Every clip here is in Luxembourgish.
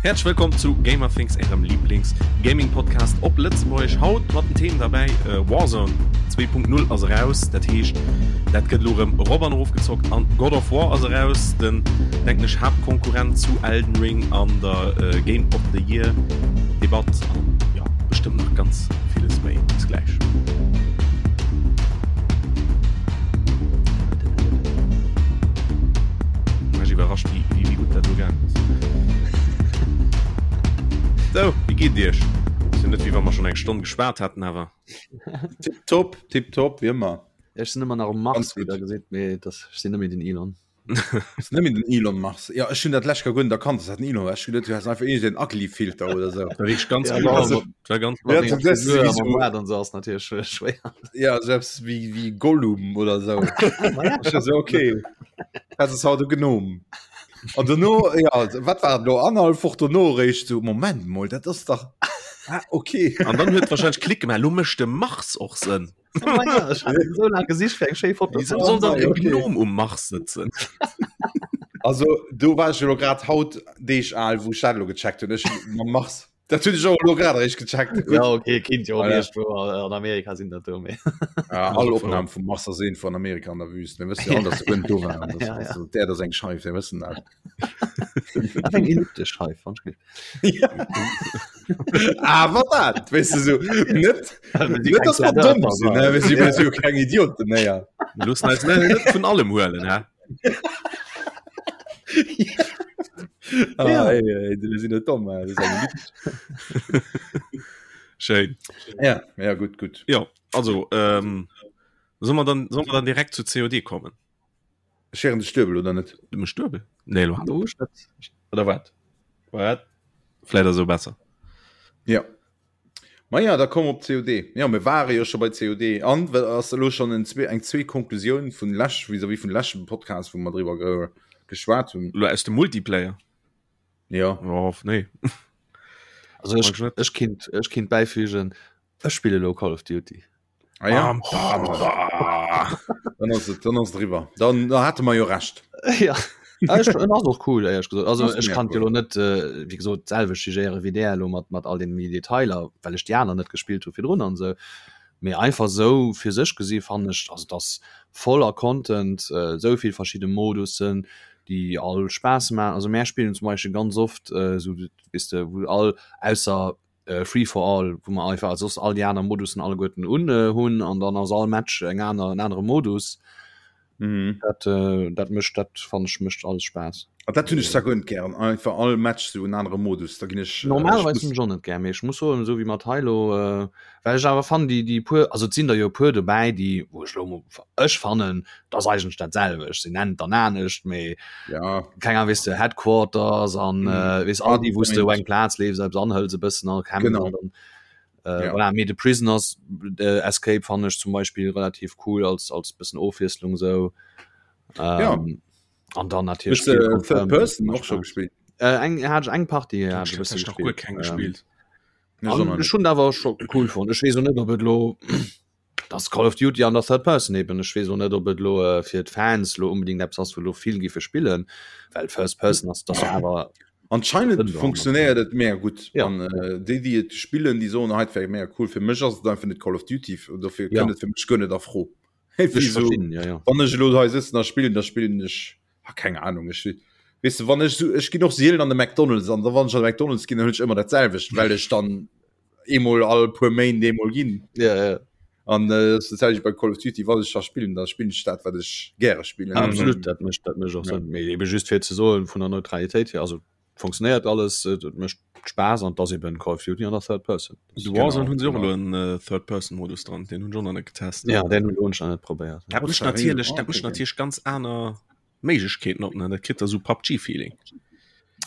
Häerzlech wëllkomm zu Gamerthings, ärem Lieblings-Gaming-Podcast op Lëtzebuergesch. Haut mat den Themen derbäi, Warzone 2.0 ass eraus, dat heescht dat gëtt elo erëm erop an erof gezockt an God of War ass eraus, den denken ech Haaptkonkurrent zu Elden Ring an der Game of the Year Debatt an jo bestëmmt nach ganz villes méi. Bis gläich. Mech iwwerrascht wéi wéi gutt dat elo gaangen ass. Sou, wéi geet et iech? Ass jo net wéi wa mer schonn eng Stonn geschwat hätten awer. Tipptopp, tipptopp, wéi ëmmer. Ech sinn ëmmer nach um Mars, wéi der gesitt, mee dat ech sinn net méi den Elon. Ass net méi den Elon Mars. Jo, ech hunn dat lech gar guer net erkannt, dass dat den Elon war. Ech hunn geduet, du häss einfach iergend en ugly Filter oder sou. War wierklech ganz ja, also, war ganz ja, du, das, wie so, dann so ass natierlech schwéier. Ja, selbst wie, wie Gollum oder sou. ja. so, okay. Dat ass haut e Gnom. An dono, ja, wat war lo annerhalb Woch dono réischt so, Moment mol, dat ass dach ah, okay. An dann huet wahrscheinlech Klick gemaach, lo mécht de Mars och Sënn. so lang gesicht fir eng schéi Foto. Wieso soll dann e Gnom um Mars sëtzen? Also do war ech jo grad haut Deeg al, wou ech dat lo gecheckt hunn. Ech mam Mars. Dat hunn ech och elo grad eréischt gecheckt. Gutt. Ja okay, kinnt jo och iergendwou an Amerika sinn dat do méi. Ja, all Opnahm vum Mars ass iergendwou an Amerika an der Wüst. Mir wëssen jo all, dass se guer net do waren. Das, Ja, ja. also, d'Äerd ass eng Scheif, mir wëssen dat. Awer eng elliptesch Scheif, fand ech gutt. Ja. Awer dat, weess de, sou net, net dass mer domm sinn, ne? Mir si mir si jo keng Idioten, ne, ja. Mir loossen eis net net vun allem huelen, hä? Ah, ja. Ey, ey, mir sinn net domm, das ist eng elliptesch. Schéin. Ja, ja, gutt, gutt. Jo, also, ähm, solle mer dann, solle mer dann direkt zu COD kommen? Ech héieren dech duebel, oder net? Du mech duebel? Nee, lo hat Oder wat? Wat? Vläit ass esou besser. Ja. Ma ja, da komm op COD. Ja, mir ware jo scho bei COD. An wat ass elo schonn en zwee, eng zweet Konklusioun vun lech, vis-à-vis vun leschtem Podcast, wou mer driwwer ge geschwat hunn? Lo aus dem Multiplayer? Ja. Oh, nee. Also ech, ech kinnt, ech kinnt bäifügen, ech spille lo Call of Duty. Ah, ja. Bam, bam, bam. Dann ass et, dann ass et eriwwer. Dann da hate mer jo Recht. Ja. Ah, ech, en ass och cool, éierlech gesot. Also ech kann jo lo net, äh, wéi gesot, d'selwecht jugéiere wéi där elo mat, mat all den méi Detailer, well ech déi aner net gespillt hu virdrun an esou. Mee einfach esou fir sech gesi fannen ech, also et ass voller Content, äh, esou vill verschidde Modussen, déi all Spaass maachen. Also mär spillen zum Beispill ganz oft äh, esou, weess de, wou all, ausser Free for all, wou mer einfach soss all déi aner Modussen alleguerten un hunn an dann ass all Match eng aner en anere Modus. Mhm. Dat, äh, dat mécht dat fannen ech mécht alles Spaass. Ah, dat hunn ech zwar guer net gären, einfach all Match sou en anere Modus, da ginn ech. Normalerweis hunn ech och net gär, mee ech muss soen, esou wéi mat hei elo, äh, well ech awer fannen déi déi puer, also et sinn der jo e puer dobäi, déi wou ech elo ech fannen, et ass eigentlech dat selwecht, se nennen et dann anescht, mee ja. keng Ahnung, weess de, Headquarters an mm. äh, weess all déi, wou du eng Plaz leefs, eppes anhëls e bëssen an kämpfen genau. an dann äh, ja. voilà, mee de Prisoners äh, Escape fand ech zum Beispiel relativ cool als als bëssen Ofwiesslung sou. Ähm, ja. An dann natierlech Hues de Third Person och scho gespillt? Äh, eng hat ech eng Partie ja, hat ech e bësse nach guer keng gespielt. Ähm, an ech hunn awer scho cool fonnt. Ech weess och net, ob et lo Das Call of Duty an der Third Person eben. Ech weess och net, ob et elo fir d'Fans elo unbedingt eppes ass, wou elo vill giffe spillen, well First Person ass dat awer. Anscheinend funktionéiert et mega gutt Ja. an déi déi et spillen, déi soen hei et wär mega cool. Fir mech ass et einfach net Call of Duty, dofir Ja. kënnt et fir mech guer net a Fro. Ech Wéi sou, verstinn, ja, ja. wann ech elo hei sëtzen a spillen, da spillen ech, ah keng Ahnung, ech weess de wann ech sou, ech ginn och sielen an de McDonald's an da wann ech an de McDonald's ginn, dann huelen ech ëmmer dat selwecht, well ech dann eemol all puer Méint eemol ginn. Ja, ja. An äh, das ist bei Call of Duty, wann ech da spillen, da spillen ich dat, wat ech gäre spillen. Absolut, dat mécht dat mécht och Ja. Sënn. Mee ebe just fir ze soen, vun der Neutralitéit hier, also funktionéiert alles, et et mécht Spaass an et ass eben Call of Duty an der Third Person. De Warzone Genau, hunn se och genau. elo en äh, Third-Person-Modus dran, deen hunn ech och nach net getest. Ja, deen hunn ech nach net probéiert. Dat mécht natierlech, dat mécht natierlech ganz aner Méiglechkeeten op, ne? Dat kritt da sou PUBG-Feeling.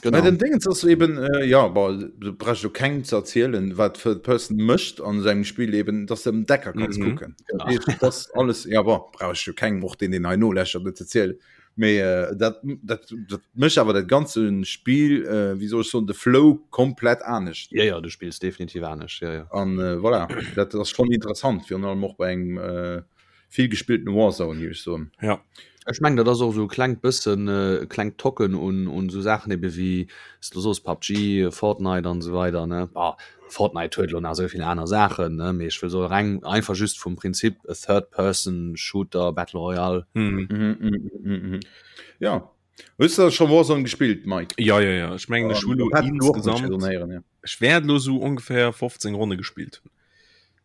Genau. Mä den Dingens ass eben, äh, ja, bon, du brauchst jo kengem ze erzielen, wat Third Person mécht an sengem Spill eben, dass de ëm d'Ecker kanns Mhm. kucken. Dat heescht, dat ass alles, ja, bon, brauch ech jo kengem, och deen, deen hei noläschert, net ze erzielen. Mee äh, dat, dat, dat mécht awer dat ganze Spill, äh, wéi soll ech soen, de Flow komplett anescht. Ja, ja, du spills definitiv anescht, ja, ja. An äh, voilà, dat ass schonn interessant, virun allem och bei engem äh,. vill gespillten Warzone, géif ech soen. Ja. Ech mengen dat ass och esou e klengt bëssen e klengt Tocken un un esou Saachen ebe wéi s du soos PUBG, Fortnite an esou weider ne. Bah Fortnite huet elo nach esou vill aner Saachen ne, mee ech wëll soe reng einfach just vum Prinzip e Third Person Shooter Battle Royale. Mhm. Mhm, mhm, mhm, mhm. Ja. Hues du scho Warzone gespillt, Mike? Ja, ja, ja. Ech mengen ech hu lo insgesamt ja. Ech wäert lo sou ongeféier 15 Ronne gespillt hunn.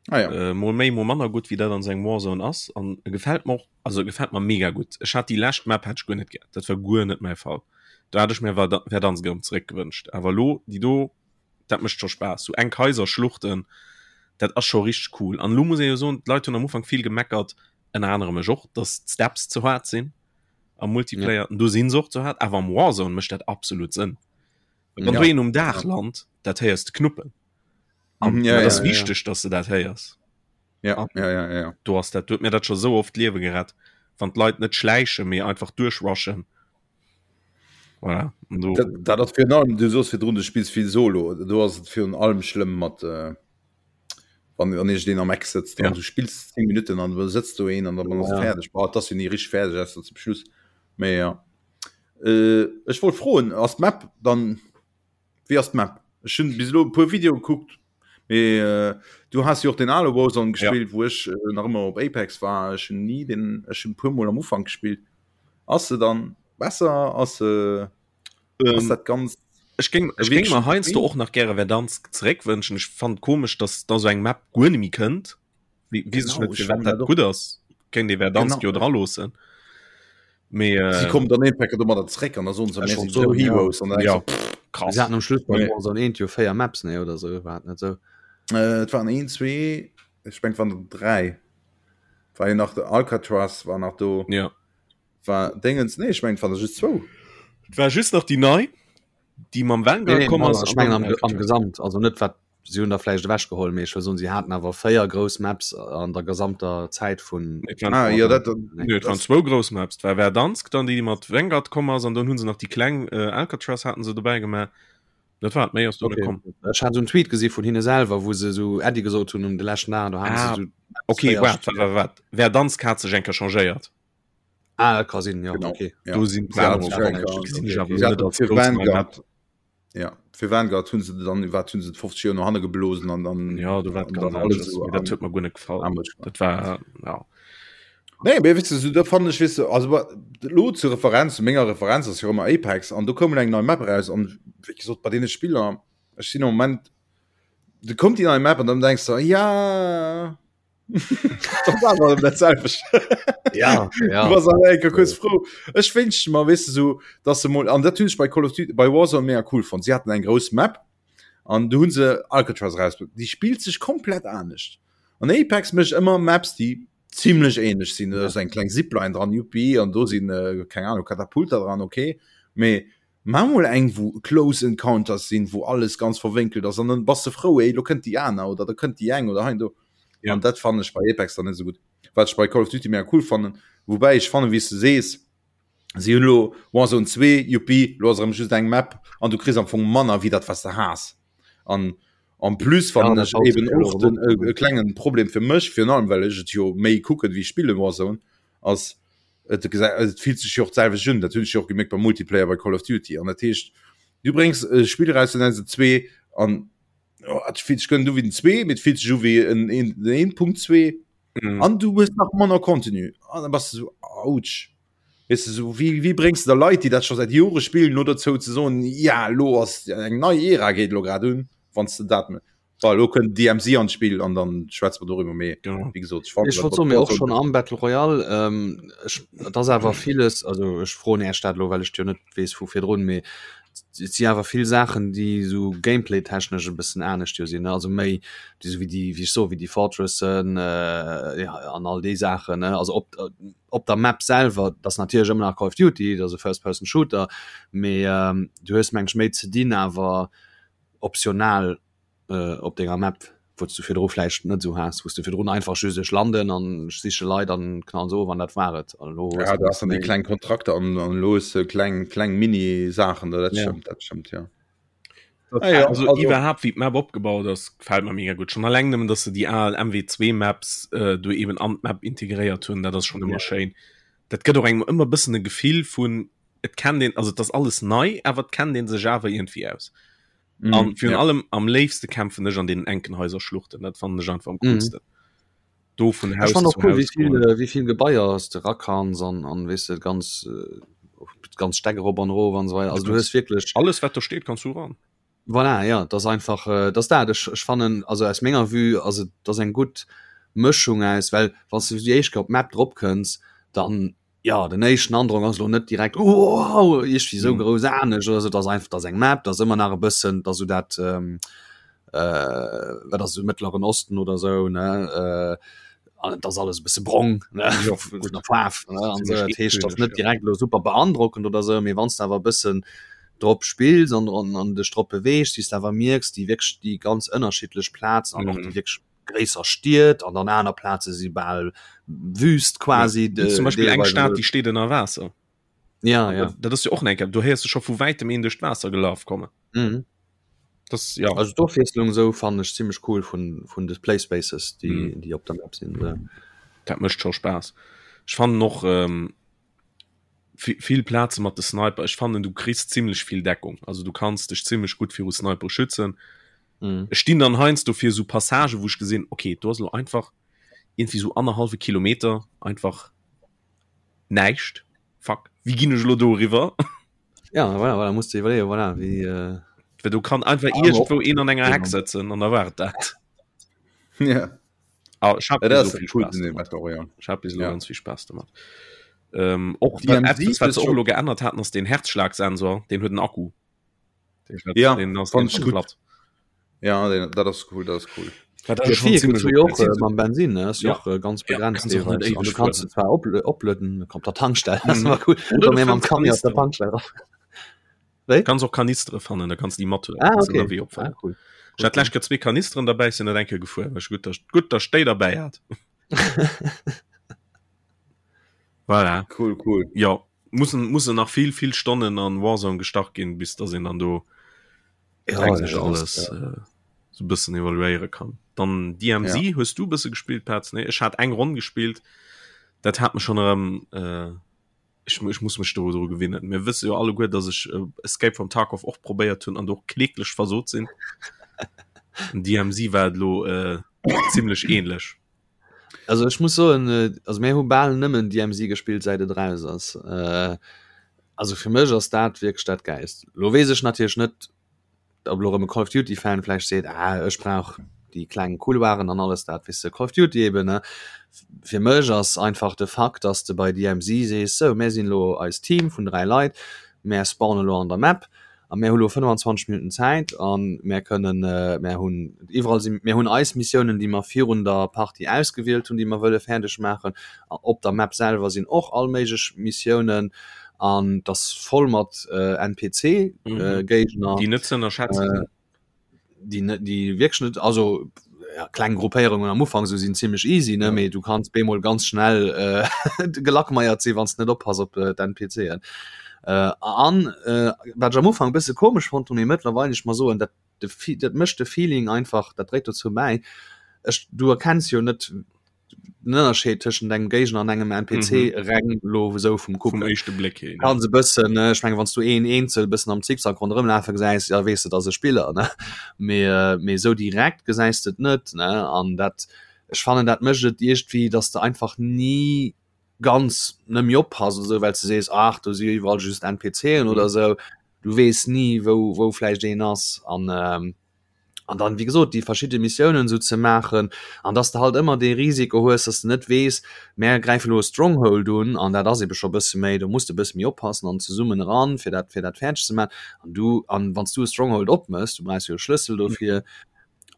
Ah, ja. Äh, mol méi, mol manner gutt, wéi dat an sengem Warzone ass. An e gefält mer och, also e gefält mer mega gutt. Ech hat déi lescht Map hat ech guer net gär. Dat war guer net mäi Fall. Do hat ech mir Verdansk erëm zeréck gewënscht. Awer lo déi do, dat mécht scho Spaass. Sou enk Haiser, Schluchten, dat ass scho richteg cool. An lo muss ee jo soen, d'Leit hunn am Ufank vill gemeckert, ënner anerem ech och, dass d'Steps ze haart sinn am Multiplayer. Ja. Do sinn se och ze haart, awer am Warzone mécht dat absolut Sënn. Wann ja. du een um Daach land, dat héiers de knuppen. An mhm, ja, dat ass ja, wichteg, ja. dass du dat héiers. Ja, ja, ja, ja. Du hast dat, du huet mir dat scho sou oft d'Liewe gerett, wann d'Leit net schläichen, mee einfach duerchrushen. Voilà. Du... Dat, dat ass virun allem, du soos virdrun, du spills vill Solo, do ass et virun allem schlëmm mat äh, wann wann iergendeen am Eck sëtzt an du spills 10 Minutten an da sëtzt do een an dann ass et fäerdeg. Bah, et ass jo ni richteg fäerdeg ausser zum Schluss. Mee ja. Äh, ech wollt froen, ass d'Map dann, wéi ass d'Map? Ech hunn bis elo e puer Videoe gekuckt, mee äh, du has jo och den ale Warzone gespillt, ja. wou ech äh, nach ëmmer op Apex war. Ech hunn ni den, ech hunn e puer Mol am Ufank gespillt. Ass se dann besser? Ass se ähm, ass dat ganz Ech géing ech géing mer heiansdo och nach gäre Verdansk zeréckwënschen. Ech fannen komesch, dass da sou eng Map guer net méi kënnt. Wie weess ech net, firwat dat gutt ass. Kéint ee Verdansk jo dra loossen. Mee äh, Si kommen dann een Pack domadder zréck an da soen se, mir sinn esou Heroes an dann ja, denkst du, pff, krass. Si haten am Schluss bei Warzone 1 jo 4 Maps, nee, oder sou, war et net sou? Äh, et waren een, zwee, ech mengen et waren der dräi. War jo nach de Alcatraz war nach do. Ja. War Déngens, nee, ech mengen et waren der just zwou. Et war just nach déi nei, déi mam Vanguard Nee, nee, komm ass. ech mengen am, am Gesamt, also net wat si hunn der vläicht ewechgeholl, mee ech wëll soen, si haten awer 4 grouss Maps an der gesamter Zäit vun. Et waren, Ah, jo, dat, nee, et waren zwou grouss Maps. Et war Verdansk dann, déi mat Vanguard komm ass, an dann hu se nach déi kleng äh, Alcatraz haten se dobäi gemaach. Dat war et, méi ass do net Okay. komm. Ech hat esou en Tweet gesi vun hinne selwer, wou se esou Äddi gesot hunn um de leschten Dag, do haten Ah, se esou okay, véier waart, waart, waart, waart. Verdansk hat sech eng Kéier changéiert. Ah, dat ka sinn, jo, Genau. okay. Ja. Do sinn Sie hat d'Plane sich och eng geännert. Kéier- Gesinn ech Okay, awer okay. Sie net hat als fir grouss nei Map. Vanguard, ja, fir Vanguard hunn se dann, wat hunn se 50 Joer no hanne geblosen an dann Ja, do war et an ganz dann alles anescht. so Mee dat am- huet mer guer net gefall. am gemacht. Dat war, ja. Nee, mee weess de, so, da fannen ech, weess de, also wa- lo zur Referenz, zu menger Referenz ass jo ëmmer Apex an do koum elo eng nei Map eraus an wéi gesot, bei deene Spiller, ech sinn am Moment, du kommt déi nei Map an dann denkst du, ja, dat war awer dat selwecht. Ja, ja. Du bass awer eng Kéier kuerz frou. Ech wénschte mer, weess de, so, dass se mol, an dat hunn ech bei Call of Duty, bei Warzone mega cool fonnt, si haten eng grouss Map an du hunn se Alcatraz erausbruecht, déi spillt sech komplett anescht. An Apex mécht ëmmer Maps, déi zimlech ähnlech sinn. Da ass eng kleng Zipline dran, juppi, an do sinn, äh, keng Ahnung, Katapulter dran, okay. Mee mach mol eng, wou Close Encounters sinn, wou alles ganz verwénkelt ass, an dann bass de frou, ey, lo kënnt déi aner oder da kënnt déi eng oder hei an do. Ja. An dat fannen ech bei Apex dann net esou gutt. Wat ech bei Call of Duty mega cool fannen, woubäi ech fannen, wéi s de sees, si hunn elo Warzone 2, juppi, lo ass erëm just eng Map an du kriss am Fong manner wéi dat, wat s de has. An en plus fannen Ja, ech dat eben haut och den e, e klengen Problem fir mech, virun allem well ech et jo méi kucken wéi spillen Warzone, ass et gesa- et fillt sech jo och d'selwecht un. Dat hunn ech jo och gemierkt beim Multiplayer bei Call of Duty. An dat heescht, du bréngs e Spill eraus, du nenns et 2 an oh, et fillt sech guer net u wéi den 2, mee et fillt sech u wéi en en den 1.2 Mhm. an du hues nach manner Contenu. An da bass du sou, ouch. Weess de, sou, wéi, wéi bréngs de da Leit, déi dat scho säit Jore spillen, lo dozou ze soen, ja, lo ass eng nei Ära geet lo grad un, wann s de dat net. Bon, lo kënnt DMZ an d'Spill an dann schwätze mer doriwwer, mee Genau. wéi gesot, ech fannen Ech dat wollt mat soen, mee och Warzone schonn am Battle Royale, ähm, ech, et ass awer villes, also ech froen Iech dat elo, well ech et jo net weess vu virdrun, mee et si awer vill Saachen, déi esou Gameplay-technesch e bëssen anescht jo sinn, ne, also méi déi esou wéi déi, wéi ech soen, wéi déi Fortressen, äh, ja, an all déi Saachen, ne, also op, op der Map selwer, dat ass natierlech ëmmer nach Call of Duty, dat ass e First-Person-Shooter, mee du hues meng ech méi ze dinn awer optional op denger Map, wou s du virdru vläicht net esou has, wou s du virdrun einfach just ech landen an ech siche Leit an knallen se of an dat war et. An elo hues Ja, du du has dann déi méi. kleng Kontrakter an an elo hues de kleng kleng Mini-Saachen do, dat Ja. stëmmt, dat stëmmt, jo. Ah, ja, also, also iwwerhaupt wie d'Map opgebaut ass, gefällt mir mega gut. Schon alleng nëmmen, dass se déi al MW2 Maps äh, do eben an d'Map integréiert hunn, dat ass schon ëmmer ja. schéin. Dat gëtt och engem ëmmer bëssen e Gefill vun et kennt een, also et ass alles nei, awer et kennt een sech awer irgendwie aus. Mm, an virun ja. allem am léifste kämpfen ech an den enken Häuserschluchten, dat fannen ech einfach am mhm. coolsten. Mm. Do vun Haus zu cool, Haus. Wie viel, äh, wie viel Gebaier s de rakans an, an wees de ganz äh, ganz Steck erop an erof an so weiter. Also du hues wirklich alles wat do steet kannst du ran. Voilà, ja, das einfach äh, das dat ech, ech fannen also aus menger Vue also das eng gut Mëschung aus well wann du déi éischt Kéier op d'Map drop kënns dann ja den éischten Androck ass lo net direkt oh, iergendwéi sou mhm. grouss anescht oder so, das einfach das eng Map, das ëmmer nach e bëssen, dass du dat ähm, äh, wat ass Mëttleren Osten oder sou ne äh, an das alles e bësse brong ne ja, gut der Faarf ne an so, dat heescht das net direkt lo super beandrockend oder sou, mee wann du awer e bëssen drop spills an an, an dech drop beweegst, wéi s du awer mierks déi wierklech déi ganz ënnerschiddlech Plazen an och déi mhm. wierklech gréisser Stied an an aner Plaze si bal Wüst quasi. Ja, zum Beispiel eng Stad déi steet ënner Waasser. Ja, ja. Dat, dat ass jo och enke du héiers du scho vu wäitem een duerch d'Waasser gelaf kommen. Mhm. Das, ja. Also d'Ofwiesslung sou fannen ech zimmlech cool vun vun de Playspaces déi mhm. déi op der Map sinn. Ja. Dat mécht scho Spaass. Ech fannen och ähm, vill Plaze mat de Sniper. Ech fannen du kriss zimmlech vill Deckung. Also du kanns dech zimmlech gutt viru Sniper schützen. Mhm. Ech stinn dann heiansdo fir sou Passagen, wou ech gesinn, okay, do ass lo einfach irgendwie sou annerhallwe Kilometer einfach näischt. Fuck, wéi ginn ech lo do eriwwer? Ja, voilà, voilà, musst du iwwerleeën, voilà, wéi. Äh... Well do kann einfach ah, iergendwou een an enger Heck sëtzen an da war et dat. Ja. Ah, ech hab ja, so viel cool, Spaß damit. Ja. Ich hab bis ja. ganz viel Spaß damit. Ähm, och etwas, was se och lo geännert hatten, ass den Herzschlagsensor, den huet en Akku. Ja, fand ich gut. Ja, den, dat ass cool, dat ass cool. Dat ass schon ziemlich okay. Och, äh, mam Bensin ne? Ist ja. och äh, ganz begrenzt ja, du kannst du zwar oplueden kommt der Tankstelle mhm. war cool. Oder oder mam Camion auf der Tankstelle Wéi? Kannst och Kanistere fannen, da kannst die mat ah, okay. ah, cool. Ich hat lech zwee Kanisteren dabei sinn net enke gefuer gut gut der Stéi dabei hat. Voilà. Cool, cool. Ja mussen mussen nach vill vill Stonnen an Warzone gestach ginn, bis dass een dann do ja, ja, alles ja. äh, so bëssen evaluéiere kann. Dann DMZ ja. hues du bësse gespielt Petz? Nee, ech hat eng Ronn gespielt. Dat hat mech schon erëm äh, ich, ich muss mech do dru gewinnen. Mir wësse jo alleguer, dass ech äh, Escape from Tarkov och probéiert hunn an do kläglech versot sinn. DMZ war et lo äh, ziemlech ähnlech. Also ech muss soen, also mir hu bal nëmmen DMZ gespillt säit et eraus ass. Also fir mech ass dat wierklech dat Gäilst. Lo weess ech natierlech net, ob elo erëm e Call of Duty Fan vläicht seet, ah ech brauch déi kleng Couloiren an alles dat, weess de, Call of Duty eben ne. Fir mech ass einfach de Fakt, dass de bei DMZ sees, sou mir sinn elo eist Team vun 3 Leit, mär spawnen elo an der Map, A mär hu lo 25 Minutten Zäit a mär kënnen, mär hunn iwwerall si, mär hunn eis Missiounen, déi mer virun der Partie ausgewielt hunn, déi mer wëlle fäerdeg maachen. Op der Map selwer sinn och all méiglech Missiounen an et ass voll mat NPC-Géigner. Déi net ze ënnerschätzen sinn. Déi net, déi wierklech net, also ja, kleng Gruppéierungen am Ufank sou sinn zimmlech easy, ne, mee du kanns bemol ganz schnell äh, gelackmeiert sinn, wann s de net oppass op äh, d'NPCen. Äh, an äh, wat ech am Ufank e bësse komesch fonnt hunn, mee mëttlerweil ech mer soen, dat de dat mécht de Feeling einfach, dat dréit dozou bäi, ech du erkenns jo net den Ënnerscheed tëschent engem Géigner an engem NPC mhm. reng lo sou vum Kucken. Vum éischte Bléck hin. Kann se bëssen ne ech menge wann du een eenzel bëssen am Zickzack ronderëm lafe gesäis, ja weess de dass e Spiller ne mee äh, mee sou direkt gesäis de et net ne an dat ech fannen dat mécht et iergendwéi, dass de einfach ni ganz net méi oppass oder sou well s de sees ach do si jo iwwerall just NPCen mhm. oder sou du weess ni wou wou vläicht een ass an ähm, an dann wéi gesot déi verschidde Missiounen esou ze maachen an dass de halt ëmmer dee Risiko hues, dass de net weess, mär gräife lo e Stronghold un an dat ass ebe scho bësse méi, do muss de bësse méi oppassen an zesummen eran, fir dat fir dat fäerdeg ze maachen an du an wann s du e Stronghold opmëss, du brauchs jo e Schlëssel dofir,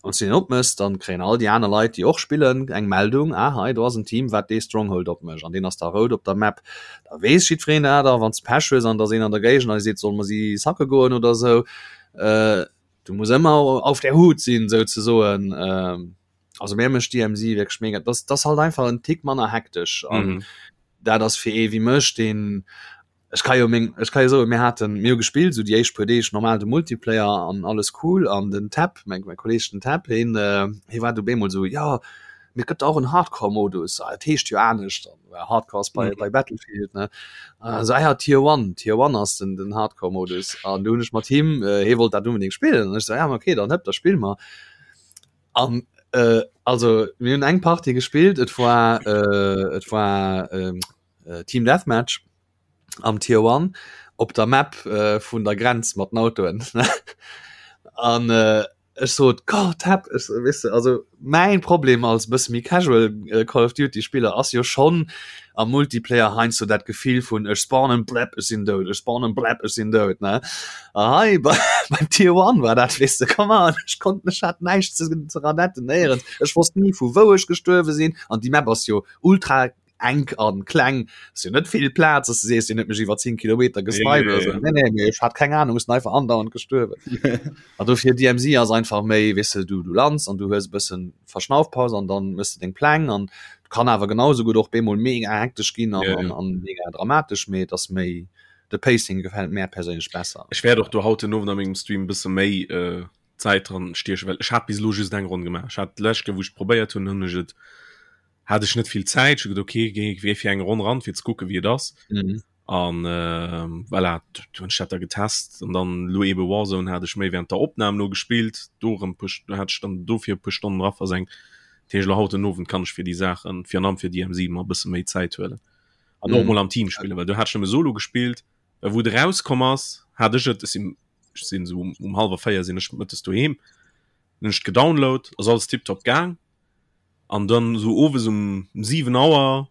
wann s du deen opmëss, dann kréien all déi aner Leit, déi och spillen, eng Meldung, ah hei do ass en Team wat dee Stronghold opmécht an deen ass da rout op der Map, da weess jiddwereen dat a wann s de Pech hues an et ass een an der Géigend an dee seet, solle mer si sacke goen oder esou, du muss ëmmer auf der Hut sinn sou ze soen ähm, also mir mécht DMZ wierklech mega das das halt einfach en Tick manner hektesch an mhm. dat ass fir ee wéi mech den. Ech ka jo meng, ech ka jo soen, mir haten, mir hu gespillt esou déi éischt puer Deeg normal de Multiplayer an alles cool an den Tab, mäin mäin Kolleeg den Tab, hien hie war du bemol esou, jo mee et gëtt och en Hardcore-Modus, ah et heescht jo anescht an well Hardcore ass bei bei Battlefield ne, esou ah ja Tier One, Tier One ass den den Hardcore-Modus an du hunn ech mat him, hie wollt dat unbedéngt spillen an ech esou, ja ma okay dann hëpp da spille mer an also mir hunn eng Partie gespillt, et war et war Team Deathmatch am Tier One op der Map äh, vun der Grenz mat den Autoen. An äh, ech sot Gott hab ech, weißt du, also mein Problem als bësse méi casual äh, Call of Duty Spiller ass jo schon am Multiplayer heiansdo dat Gefill vun ech spawnen blep ech sinn dout, ech spawnen blep ech sinn dout ne. A hei bei, beim Tier One war dat weißt du, come on, ech konnt mech hat näischt ze, ze ranetten néierens. Ech wosst ni vu wou ech gestuerwe sinn an déi Map ass jo ultra enk an kleng ass jo net vill Plaz dass du sees deen huet mech iwwer 10 Kilometer gesniped oder sou. Nee, nee, mee ech hat keng Ahnung, ech sinn einfach andauernd gestuerwen. An dofir DMZ ass einfach méi weess de, du du lands an du hues e bëssen Verschnaufpaus an dann mëss de deng Pläng an kann awer genau sou gutt och bemol mega hektesch ginn an an an mega dramatesch, mee et ass méi de Pacing gefält mär perséinlech besser. Ech wäert och do haut den Owend a mengem Stream e bësse méi Zäit dran stiechen, well ech hat bis elo just eng Ronn gemaach. Ech hat d'lescht Kéier wou ech et probéiert hunn, hunn ech et hat ech net vill Zäit, ech hu geduet okay, géi géi fir eng Ronn ran fir ze kucke wéi et ass. Mhm. An äh, voilà, du hunn ech dat da getest an dann lo ebe Warzone hat ech méi während der Opnam lo gespillt, do erëm puer, do hat ech dann dofir e puer Stonnen dra versenkt. Dat heescht lo haut den Owend kann ech fir déi Saachen, virun allem fir DMZ mer e bësse méi Zäit huelen. An och mhm. mol am Team spillen, well do hat ech nëmme solo gespillt, well wou et erauskomm ass, hat ech et, ech sinn ech sinn esou um, um hallwer 4 sinn ech mëttes doheem, hunn ech gedownload, ass alles tiptop gaang. An dann esou owes um 7 Auer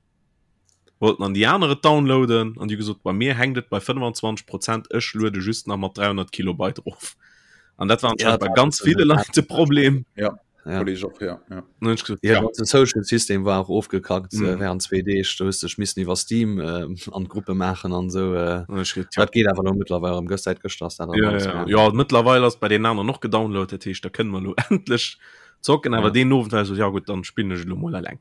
wollten an déi aner et downloaden an déi hu gesot, bei mir hänkt et bei 25 Prozent, ech luede just nach mat 300 Kilobyte erof. An dat war anscheinend ja, bei ganz ville Leit de Problem. Ja. Ja. Och, ja. Ja. Gesagt, ja, ja. De Social System war och ofgekackt mm. äh, während zwee Deeg. Du hues dech missen iwwer Steam äh, an Gruppe maachen an sou. Äh, ja. Dat geet awer lo mittlerweile am gëscht seit gëschter ass dat ja, ja. ja mittlerweile ass bei den anderen noch gedownload, dat heescht da kënne mer lo endlech Zocken awer ja. deen Owend war so ja gut dann spillen ech lo mol alleng.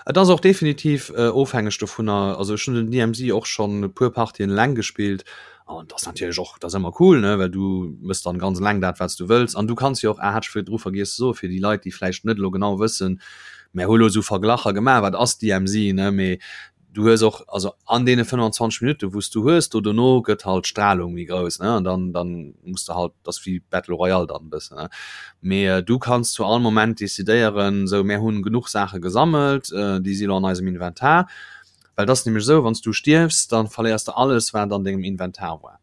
Et ass och definitiv äh, ofhängeg dovunner also ech hunn den DMZ och schon e puer Partien eleng gespillt an das natierlech och das ëmmer cool ne well du mëss dann ganz eleng dat wat du wëlls an du kanns jo och ah, hat ech virdru vergiess ze soen fir déi Leit déi vläicht net elo genau wëssen mär hu lo sou Verglacher gemaach wat ass DMZ ne mee du hues och also an deene 25 Minutten wou s du hues do dono gëtt halt d'Stralung méi grouss ne an dann dann muss de halt das wéi Battle Royale dann e bëssen ne mee äh, du kanns zu all Moment decidéieren sou mär hunn genuch Saache gesammelt äh, déi si lo an eisem Inventar well dat ass nämlech esou wann s du stierfs dann verléiers de alles wat an dengem Inventar war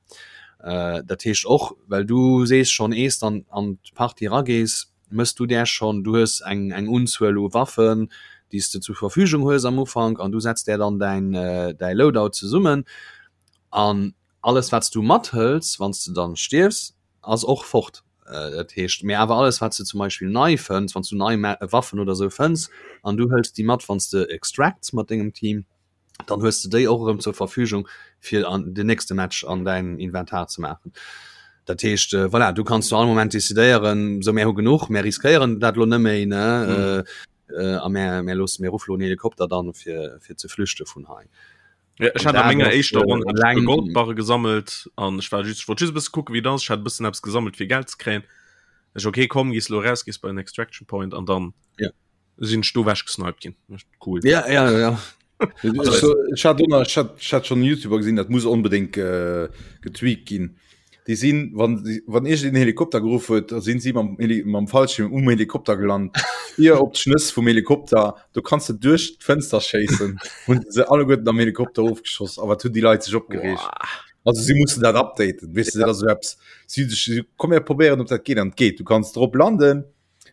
äh, dat heescht och well du sees schonn ees dann an d'Partie eragees Mëss du där schonn? Du hues eng eng Unzuel u Waffen, déi s de zur Verfügung hues am Ufank an du setz där dann däin däi Loadout zesummen an alles wat s du mathëls, wann s de dann stierfs, ass och fort. Dat heescht, mee awer alles wat s de zum Beispill nei fënns, wann s du nei Waffen oder sou fënns an du hëls déi mat wann s de extracts mat dengem Team, dann hues de déi och erëm zur Verfügung fir an den nächste Match an däin Inventar ze maachen. Dat heescht äh, voilà, du kanns zu all Moment decidéieren, sou mär hu genuch, mär riskéieren dat lo net méi ne mm. äh, äh, a mär, mär loosse mir ruffe lo en Helikopter dann fir, fir ze flüchte vun hei. Ja, ech hat a menger éischter Ronn äh, Goldbarre gesammelt an ech war just, ech wollt just e bësse kucke wéi dat ass. Ech hat e bëssen eppes gesammelt fir Geld ze kréien. Ech okay komm, gees lo raus, gees bei den Extraction Point an dann ja. sinn ech do wech gesniped ginn cool ja ja ja ich hat ich hat, ich hat schon youtuber gesinn dat muss unbedingt äh, getweakt ginn die sinn wann wann ich den Helikopter gerufen huet da sinn sie mam Heli mam Fallschirm um Helikopter gelandet hier op d'Schnëss vum Helikopter du kannst du duerch d'Fenster schéissen hunn se alleguerten am Helikopter ofgeschoss awer hunn die Leit sech opgereegt also sie mussen dat updaten weißt du, dat ass so eppes sie, sie komm mir probéieren ob dat geht an geht du kannst drop landen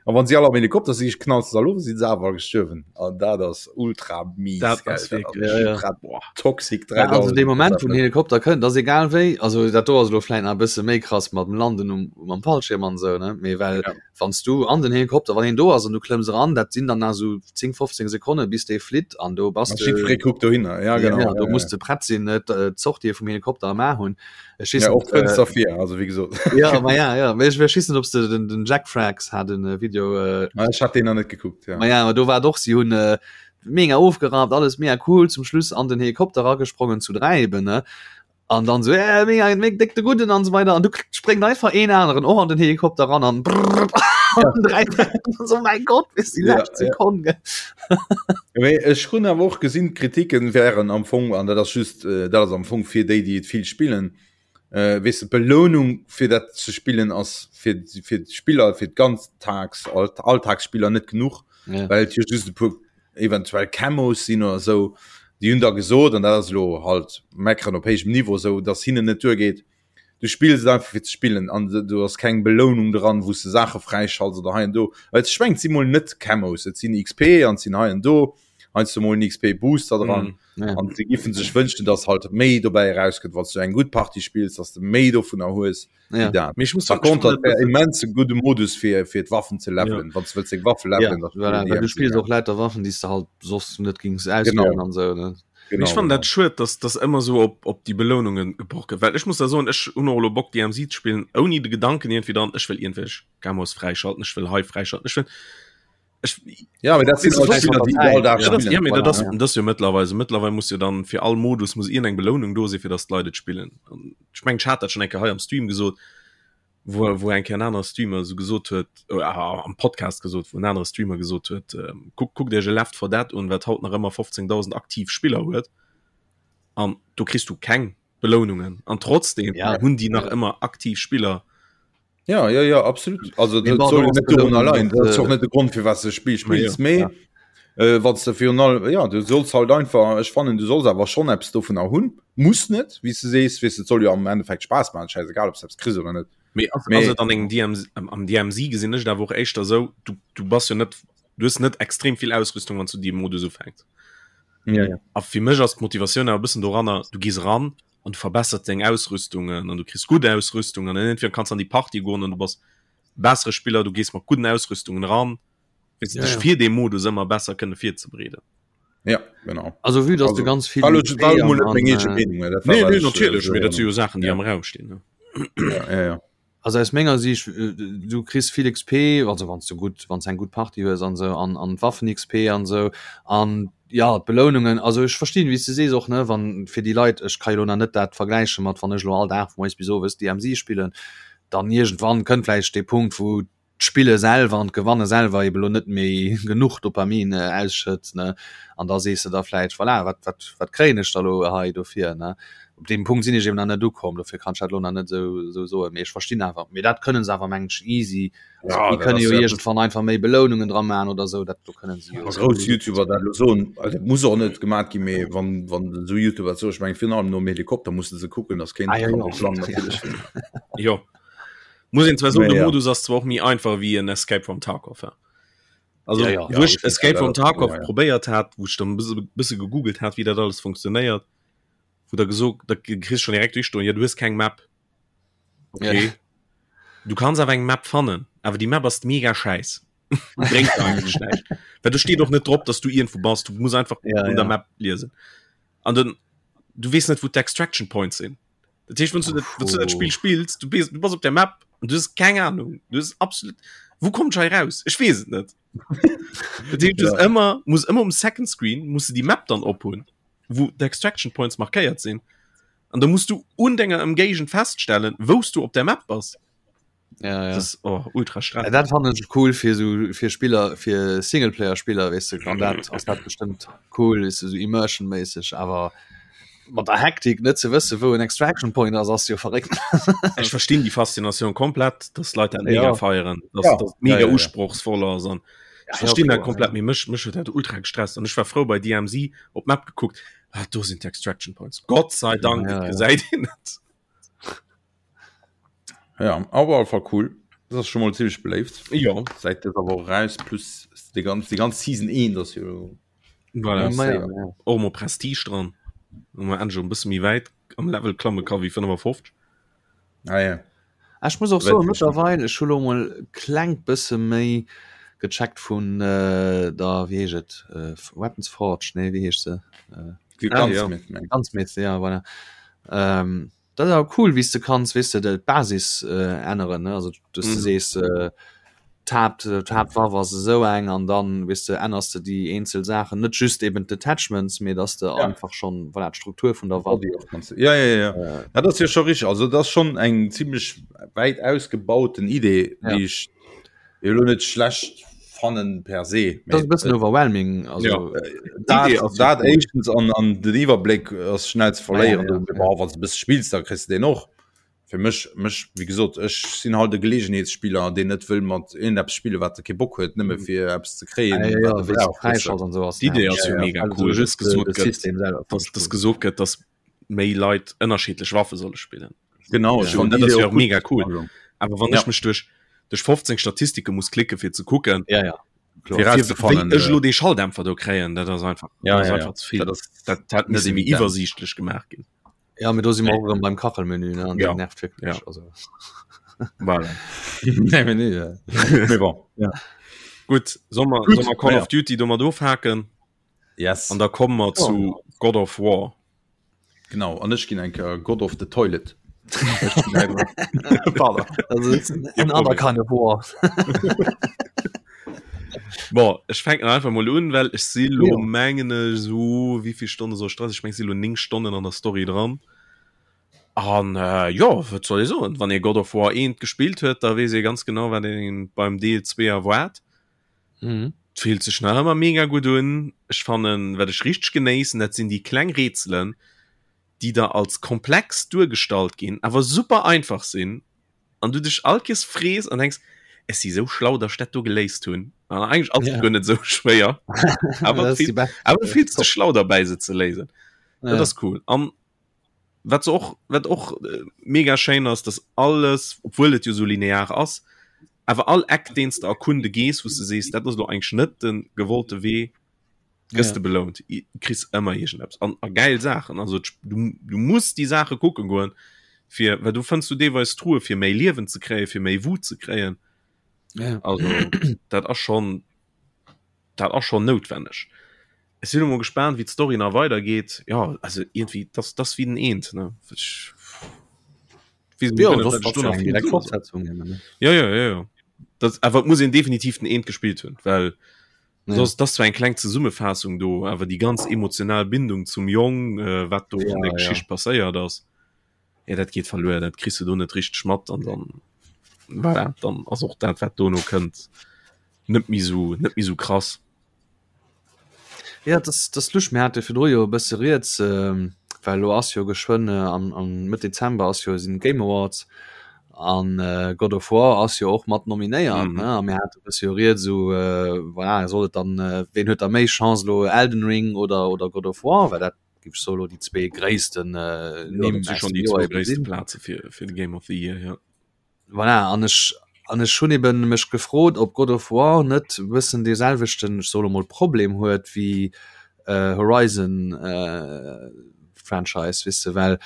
A wann si all am Helikopter si knalls se all of, si se awer gestuerwen. An dat ass ultra mies. Dat ass wierklech ja, ja. Boah, toxic 3000. Ja, also de Moment vun Helikopter kënnt, ass egal wéi, also dat do ass lo vläit nach e bësse méi krass mat dem Landen um, mam Fallschirm an esou, ne? Mee well ja. wann s du an den Helikopter, wann een do ass an du klëmms eran, dat sinn dann nach esou 10, 15 Sekonne bis dee flitt an do bass de. Jiddweree kuckt dohinner, ja genau. Ja, do ja, muss de prett sinn, net d'Sortie vum Helikopter am A hunn. Ech weess ja, och Fënster äh, vir also wie gesot ja, ma ja, ja. Ech ech weess net ob de den, den Jack Frags hat den äh, Video äh, ah, ich hat den noch net gekuckt ja. Ma ja, do war doch sie hunn äh, mega ofgerappt, alles mega cool, zum Schluss an den Helikopter ragesprongen zu 3 eben, ne? An dann so äh, mega, mega dick de Gudden an so weiter an du spréngt einfach een aneren och an den Helikopter ran an brrr, ja. drei, so mein Gott bis die ja, letzte Sekunde. Ja. Mee ech hunn awer och gesinn, d'Kritiken wären am Fong, an dat ass just äh, dat ass am Fong fir déi, déi et vill spillen, äh, weess de, d'Belounung fir dat ze spillen ass fir fir d'Spiller, fir d'Ganztags Alltagsspiller net genuch, ja. well et jo just e puer eventuell Camos sinn oder esou, déi hunn da gesot, an dat ass elo halt meckeren op héijem Niveau, esou datt hinnen net duergeet, du spills et einfach fir ze spillen an do ass keng Belounung dran, wou s de Saache fräischalts oder hei an do. Well ech mengen, et si mol net Camos, et sinn XP an et sinn hei an do heiansdo mol en XP-Booster dran. Mm, ja. An se giffen sech wënschen, datt halt méi dobäi erauskënnt, wann s du eng gutt Partie spills, datt s de méi dovunner hues. Ja. Dat. Mee ech muss Par contre, dat wär immens e gudde Modus fir fir d'Waffen ze levelen, ja. wann du wëlls deng Waffe levelen. Ja, voilà, well du spills och lauter Waffen, déi s de halt soss net gings auswählen an sou, ne? Genau, ich fand dat schued, dass das ëmmer so op, op die Belohnungen gebroch gëtt. Well ech muss da soen, ech hunn och elo Bock DMZ ze spillen, ouni de Gedanken irgendwie dran, ech wëll iergendwelch Camos fräischalten, ech wëll hei fräischalten, ech wëll Ech, ja, dat sind halt Spieler, die all Dag ja, das, ja, voilà, das, ja. das jo mittlerweile mittlerweile muss jo dann fir all Modus muss eng Belohnung do si fir dass d'Leit et spillen. Ech mengen ech hat dat schon eng Kéier hei am Stream gesot, wo wo eng Kéier en anere Streamer so gesot huet äh, am Podcast gesot, wo en anere Streamer gesot huet, äh, guck, guckt Iech e Left 4 Dead un, wat haut nach ëmmer 15.000 aktiv Spiller huet an do kriss du keng Belounungen an trotzdem ja. hunn déi nach ëmmer aktiv Spiller. Ja, ja, ja, absolut. Also dat soll jo net dorun allein. Dat ass och net de Grond fir wat de Spill spills, mee ja. äh, wann du virun allem ja, du solls halt einfach ech fannen du solls awer schon eppes dovunner hunn. Muss net, wéi s du sees, weess et soll jo am Endeffekt Spaass maachen, scheißegal ob s eppes kriss oder net. Mee ass, ass et an engem DMZ, am DMZ gesinn ech et awer och éischter esou, du, du bass jo net, du hues net extrem vill Ausrüstung, wann s du dee Modus ufänks. Ja, ja. A fir mech ass d'Motivatioun awer e bëssen doranner, du gees eran an du verbessert deng Ausrüstungen an du kriss gutt Ausrüstung an entweder kanns an déi Party goen an du bass bessere Spiller, du gees mat gudden Ausrüstungen ran, weess du, ja, dech fir dee Modus ëmmer besser kënne virzebereeden. Ja, genau. Also vue dass du ganz vill war war mol net meng eege Meenung, dat war Nee, nee, natierlech, mee dat si jo Saachen, déi am Raum stinn, ne? Ja, ja, ja. Also aus menger Siicht, du kriss vill XP, also wann s du gutt, wann s eng gutt Partie hues an esou, an an d'Waffen XP an esou an jo d'Belounungen. Also ech verstinn wéi s de sees och ne, wann fir déi Leit, ech ka jo elo nach net dat vergläiche mat wann ech elo all Dag vu moies bis owes DMZ spillen, dann iergendwann kënnt vläicht dee Punkt wou d'Spille selwer an d'Gewanne selwer eben elo net méi genuch Dopamin ausschëtt, ne, an da sees de der vläicht, voilà, wat, wat, wat kréien ech da elo hei dofir, ne? Op deem Punkt sinn ech eben nach net ukomm, dofir kann ech dat elo nach net esou, esou soen, mee ech verstinn awer, mee dat kënne se awer, mengen ech, easy, also Ja, déi dat kënne ass jo ja iergendwann einfach méi Belounungen dra maachen oder esou, dat do kënne se jo Wa grouss YouTuber dat elo soen, also dat muss och net gemat ginn, mee wann, wann esou YouTuber dat soen, ech mengen virun allem nom Helikopter musse se kucken, dass keen Ah, ja, kann jo. drop landen natierlech. Jo. Muss een zwar soen, Mee de ja. Modus ass zwar och méi einfach wéi en Escape from Tarkov. Ja. Also Ja, ja. wou ech Ja, Escape from ja, Tarkov ja. probéiert hat, wou ech dann e bësse bësse gegoogelt hat, wéi dat alles funktionéiert, wou da gesot, da kriss schon direkt duerchstoen, ja du hues keng Map. Okay. Ja. Du kanns awer eng Map fannen, awer déi Map ass mega schäiss. Bréngt der eigentlech näischt. Well do steet och net drop, dass du iergendwou bass, du muss einfach Ja, un der ja. Map liesen. An den du weess net, wou d'Extraction Points sinn. Dat heescht, wann du dat, wann du dat Spiel spills, du bist, du bass op der Map und du hast keng Ahnung. Du hast absolut Wo kommt hei raus? Ech weess et net. Dat heescht, du hast Ja. ëmmer muss ëmmer um Second Screen muss du die Map dann ophunn, wou d'Extraction Points markéiert sinn. An da musst du un denger Ëmgéigend feststellen, wous du op der Map bass. Ja, ja. Das ist oh, ultra Ja, stressig. dat fannen ech cool fir so fir Spiller fir Singleplayer Spiller weess de an dat ass dat bestëmmt cool weess de so immersion méisseg awer mat der Hektik net ze wësse wou en Extraction Point ass ass jo verréckt. Ech verstinn déi Faszinatioun komplett, dass Leit dat mega Ja. feieren, dass Ja. das mega Ja, ja, ja. usprochsvoll ass an Ja, ech verstinn ja, dat komplett, mee mech mech huet dat ultra gestresst an ech war frou bei DMZ op d'Map gekuckt, ah do sinn d'Extraction Points. Gott sei Dank, Ja, et ja. gesäit een et. Ja, awer auf alle Fall cool. Das ass schon mal ziemlich beléift. Jo. Seit dëser Woch raus plus die ganz die ganz Season 1 ass jo Voilà. Ja, ja, ja. Och mol Prestige dran. Wo man endlech e bësse méi wäit am Level klamme ka wéi 55. Ah, ja. Ah, Ech muss och soen, mëttlerweil, ech hu lo mol klengt bësse méi gecheckt vun äh, der, wéi heescht et, äh, Weapons Forge, nee, wéi heescht se? Äh, Die Ah, ja. Gunsmith, meng. Gunsmith, ja, voilà. Ähm, dat ass awer cool, wéi s de kanns, weess de, de d'Basis äh, änneren, ne? Also, dass du Mhm. sees, äh, d'Haapt d'Haaptwaff ass esou eng an dann weess de ännerst de déi eenzel Saachen, net just eben d'Attachments, mee dass de ja. einfach schon voilà, d'Struktur vun der Waff. Ja, ja, ja. Äh, dat ass jo scho richtig. Also dat ass schon eng ziemlech wäit ausgebauten Idee, ja. déi ech elo net schlecht fannen per se. Dat ass e bëssen overwhelming. Also, ja. Äh, dat, dat éischtens an, an den Iwwerbléck ass schnell ze verléieren. Ja, ja, ja. Wann du bësse spills, da kriss du den och. Fir mech, mech, wéi gesot, ech sinn halt e Geleegenheetsspiller, deen net wëll mat iergendeppes spillen, wat e kee Bock huet, nëmme fir eppes ze kréien, Ah, ja, wat ja, e brauch, weess de. an sou ass D'Idee ass Ja, jo ja. mega Also cool, dass just de, gesot de gëtt, System selwer fand dass, ech dass cool. gesot gëtt, dass méi Leit ënnerschiddlech Waffe solle spillen. Genau, ech Ja, fand dat ass d'Idee jo och och mega gutt. cool. Also, Awer wann ja. ech mech duerch, duerch 15 Statistike muss klicken, fir ze kucken, Ja, ja. Fir fir, wéi rauszefannen, ech äh, elo dee Schalldämpfer do kréien, dat ass einfach, ja, dat ass ja, ja. einfach ze vill. Dat ass Dat hätt net misse méi evident. iwwersiichtlech gemaach ginn. Ja, mee do si mer och erëm beim Kachelmenü, ne? An Ja. dat nervt wierklech. Ja. Also. Voilà. Nee, mee nee, ja. Mee bon, ja. Gutt, soll mer, Gutt, soll mer Call ja. of Duty domat ofhaken? Yes. An da komme mer Ja. zu God of War. Genau, an ech ginn eng Kéier God of the Toilet. Pardon. Also, it's another kind of war. Bon, ech fänken einfach mol un, well ech si lo Ja. mengen ech so wéivill Stonne soll ech dran sinn? Ech meng ech si lo 9 Stonnen an der Story dran. An äh, jo, wat soll ech soen? Wann ee God of War 1 gespillt huet, da weess ee ganz genau, wat een beim Deel 2 erwaart. Mhm. Et fillt sech nach ëmmer mega gutt un. Ech fannen, wat ech richteg genéissen, dat sinn déi kleng Rätselen, déi da als komplex duergestallt ginn, awer super einfach sinn an du dech all Kees frees an denks, ech si sou schlau, datt ech dat do geléist hunn. An eigentlech ass et Ja. guer net sou schwéier, awer Dat ass du déi bescht. awer du fills dech schlau derbäi se ze léisen. Dat Ja. ass cool. An wat se och wat och äh, mega schéin ass, dass alles, obwuel et jo sou linear ass, awer all Eck deen s de erkunde gees, wou s de sees, dat ass lo eigentlech net de gewollte Wee, gëss Ja. de belount. I- Kriss ëmmer iergendeppes an a gäil Saachen. Also d'Sp- du, du muss déi Saache kucke goen, fir well do fënns du deelweis Truhe fir méi Liewen ze kréien, fir méi Wut ze kréien. Ja. Also dat ass schon dat ass schon noutwenneg. Ech sinn elo mol gespaant wéi d'Story nach weidergeet. Ja also irgendwie das das wéi den Eent ne. Ech weess Ja, net, das wat ech ass do ja nach eng vill direkt soe soll. Fortsetzung eben, ne? Ja ja ja ja. Dat awer et muss een definitiv den Eent gespillt hunn, well Ja. Soss, das zwar eng kleng Zesummefaassung do, awer déi ganz emotional Bindung zum Jong, äh, wat do Ja, an der ja. Geschicht passéiert ass, ja, dat geet verluer, dat kriss du do net richteg mat an dann, voilà, dann ass och dat, wat dono kënnt, net méi sou, net méi sou krass. Ja, das, das lusch mir hatte virdru jo e bësse rieds, ähm, well lo ass jo geschwënn äh, am, am Mëtt Dezember ass jo sinn Game Awards an äh, God of War ass jo och mat nominéiert, Mhm. ne? A mir hate e bësse jo rieds esou, äh, voilà, soll et dann, äh, ween huet da méi Chance elo Elden Ring oder, oder God of War, well dat géif ech soe lo déi zwee gréissten äh, Ja, Nimm dat si aus schon dem déi Joer zwou eben gréisste sinn. Plaze fir, fir de Game of the Year, ja. Voilà, an ech, an ech hunn eben mech gefrot, ob God of War net e bëssen dee selwechten, ech soe lo mol, Problem huet wéi äh, Horizon äh, Franchise, weess de, well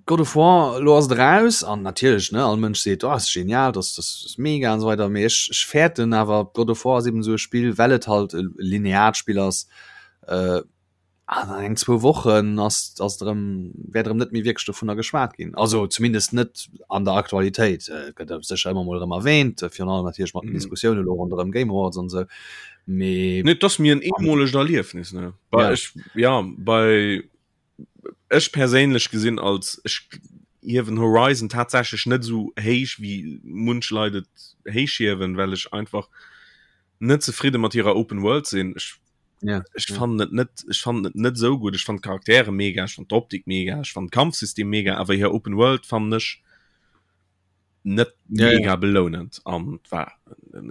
God of War, lo ass et eraus an natierlech, ne, all Mënsch seet, oh, ass genial, das, das ass mega an esou weider, mee ech, ech fäerten awer, God of War ass eben esou e Spill, well et halt e lineart Spill ass, äh, an eng zwou Wochen ass ass et erëm wäert erëm net méi wierklech dovunner geschwat ginn. Also zumindest net an der Aktualitéit. Et gëtt sécher ëmmer mol erëm erwähnt, virun allem natierlech mat den Mhm. Diskussioune lo ronderëm Game Awards an esou, mee Nee, et ass mir en eemolegt Erliefnis, ne. Bei Ja. ech, ja, bei ech perséinlech gesinn als ech hiewen Horizon tatsächlech net esou héich wéi munch Leit et héich hiewen, well ech einfach net zefridde mat hirer Open World sinn. Ech ja, ech ja. fannen et net ech fannen et net esou gutt. Ech fannen d'Charaktere mega, ech fannen d'Optik mega, ech fannen d'Kampfsystem mega, awer hir Open World fannen ech net Ja, ja. mega belounend an war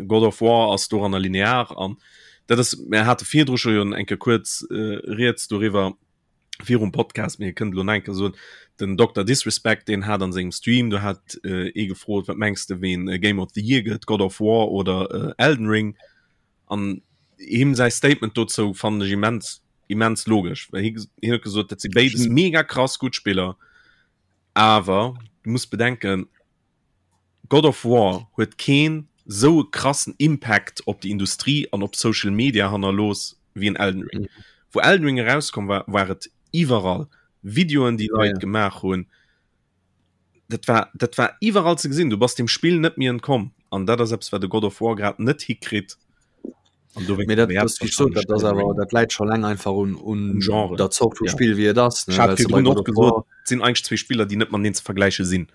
God of War ass doranner linear an dat ass mir hate virdru scho jo eng Kéier kuerz äh, rieds doriwwer virum Podcast mir kënnt lo nach eng Kéier soen den Dr Disrespect deen hat an sengem Stream do hat äh, ee gefrot wat mengs de ween äh, Game of the Year gëtt God of War oder äh, Elden Ring an him säi Statement dozou fannen ech immens immens logesch well hie hien huet gesot dat si béides mega krass gutt Spiller Awer du muss bedenken, God of War huet keen sou e krassen Impact op déi Industrie an op Social Media hannerlooss wéi en Elden Ring. Mhm. Wou Elden Ring erauskomm war, war et iwwerall. Videoen, déi Leit ja. gemaach hunn. Dat war, dat war iwwerall ze gesinn. Du bass dem Spill net méi entkomm. An dat ass eppes, wat de God of War grad net hikritt. An do dat, dat, so, dat, das awer, dat läit scho läng einfach un, un Genre der Zort vum ja. Spiel wie et ass. Ne? War sinn eigentlich zwee Spiller, déi net mateneen ze vergläiche sinn.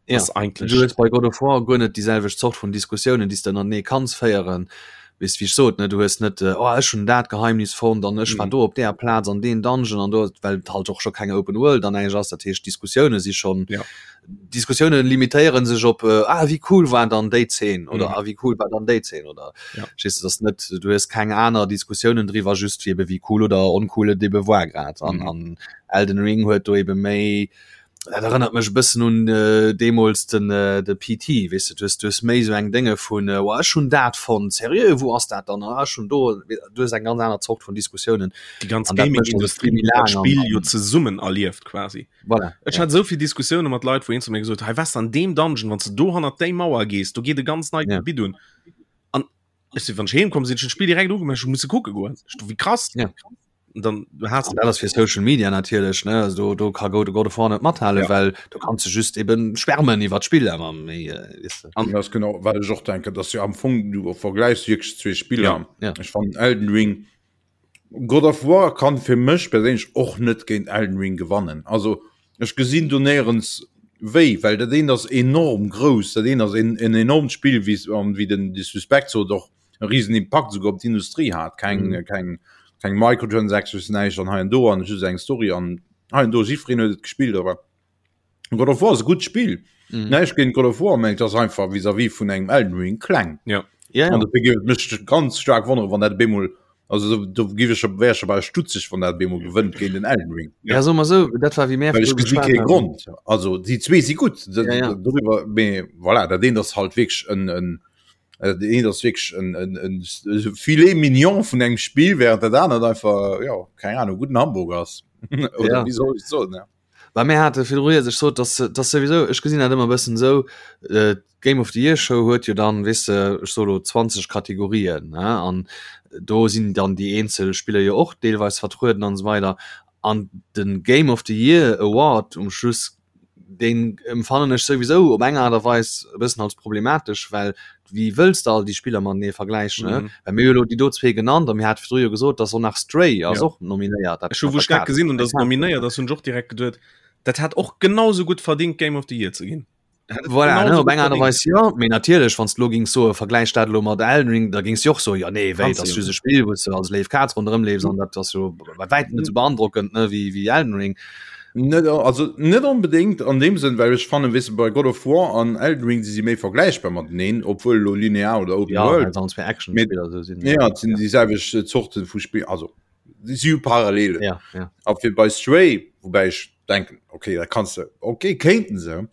Ja. Eigentlich du hues bei God of War guer net déi selwecht Zort vun Diskussiounen, déi s de ënnertenee kanns féieren. Weess wéi ech sot, ne? Du hues net äh, oh, ech hunn dat Geheimnis fonnt an ech war mhm. do op där Plaz an deen Dungeon an do, well et halt och scho keng Open World an eigentlich ass. Dat heescht Diskussioune si schon ja. Diskussioune limitéieren sech op äh, ah, wéi cool war dann déi Zeen oder mhm. ah, wéi cool war dann déi Zeen oder ja. Verstehst du, das net du hues keng aner Diskussiounen driwwer just wie ebe wéi cool oder oncool et ebe war grad an, mhm. an Elden Ring huet do ebe méi dat erënnert mech e bëssen un äh, deemools den äh, de PT weess du, du hues du hues méi sou eng Dénge vun äh, oh, ech hunn dat fonnt seriö wou ass dat dann ah, ech hunn do du hues eng ganz aner Zort vun Diskussiounen déi ganz An dat mécht Gaming-Industrie das Spiel méi huet dat laang an- Spill jo zesummen erlieft quasi. Voilà, Ech ja. hat esou vill Diskussioune mat Leit, wou een zu mir gesot huet, hei wess an deem Dungeon, wann s de do hannert déi Mauer gees, do geet e ganz neit Ja. Gebitt un. An ech sinn, wann ech heem komm sinn, ech hunn d'Spill direkt ugemaach, ech hu musse kucke goen. Ech do, wéi krass. Ja. Und dann du hast An dat ass fir Social Media natierlech ne also do, do ka God God of War net mathale Ja. well du kanns du just eben schwärmen iwwer d'Spill awer méi äh, weess de. An das genau wat ech och denken, dass jo am Fong du vergleichs wierklech zwee Spiller. Ja. Ja. Ech fannen Elden Ring God of War kann fir mech perséinlech och net géint Elden Ring gewannen. Also ech gesinn do néierens wéi, well dat eent ass enorm grouss, dat eent ass en, en enormt Spill, wéi an wéi den de Suspect sot och e riesen Impakt souguer op d'Industrie hat. Keng, mm. keng, keng Microtransactions, näischt an hei an do an just eng Story an hei an do jiddwereen huet et gespillt, awer God of War ass e gutt Spill. Mm. Näischt géint God of War, mä et ass einfach vis-à-vis vun engem Elden Ring kleng. Ja. Ja, ja. An dofir géif et mech ganz staark wonnere wann dat bemol also do, do géif ech wär ech bal stutzeg wann dat bemol gewënnt géint den Elden Ring. Ja, so mal so, dat war wie mär Well ech virdru gesi geschwat kee haten. Grond. Also déi zwee si gutt Ja, ja. doriwwer, mee voilà, dat eent ass halt wierklech en en dat eent ass wierklech en en en Filet mignon vun engem Spill, während dat anert einfach ja keng Ahnung gudden Hamburger ass. Oder Ja. wéi soll ech et soen, ja. Well mir hate virdru rieds, ech sot, dass, dass souwisou, ech gesinn dat ëmmer e bëssen esou, d'Game of the Year Show huet jo dann, weess de, ech soe lo 20 Kategorien, ne, an do sinn dann déi eenzel Spiller jo och deelweis vertrueden an esou weider. An de Game of the Year Award um Schluss, deen emfannen ech souwisou op eng Aart a Weis e bëssen als problematesch, well wéi wëlls de all déi Spiller matenee vergläichen, ne? Well mir hu elo déi do zwee genannt a mir hate virdru jo gesot, dass och nach Stray ass Ja. och nominéiert. Dat Ech hu mat wou der ech dat Kaz. gesinn hunn, dass et nominéiert ass, hunn ech och direkt geduet, dat hätt och genau sou gutt verdingt Game of the Year ze ginn. Dat hätt et Voilà, genau ne, sou op gutt eng Aart a verdingt. Weis jo, mee natierlech, wann s de elo gings soen, vergläich dat elo mat Elden Ring, da gings de och soen, jo nee, wéi, Kanns dat de ass jo just e net. Spill, wou s de als léif Kaz ronderëm leefs an dat ass jo bei wäitem net sou beandrockend, ne, wéi, wéi Elden Ring. Net, also net onbedéngt an deem Sënn, well ech fannen, weess de, bei God of War an Elden Ring si si méi vergläichbar mateneen, obwuel elo linear oder Open Ja, World. well se all zwee Actionspiller esou sinn. Ja, et sinn déi selwecht Zorte vu Spill, also si hu Parallelen. Ja, ja. A fir bei Stray, woubäi ech denken, okay, dat kanns de, okay, kéinten se,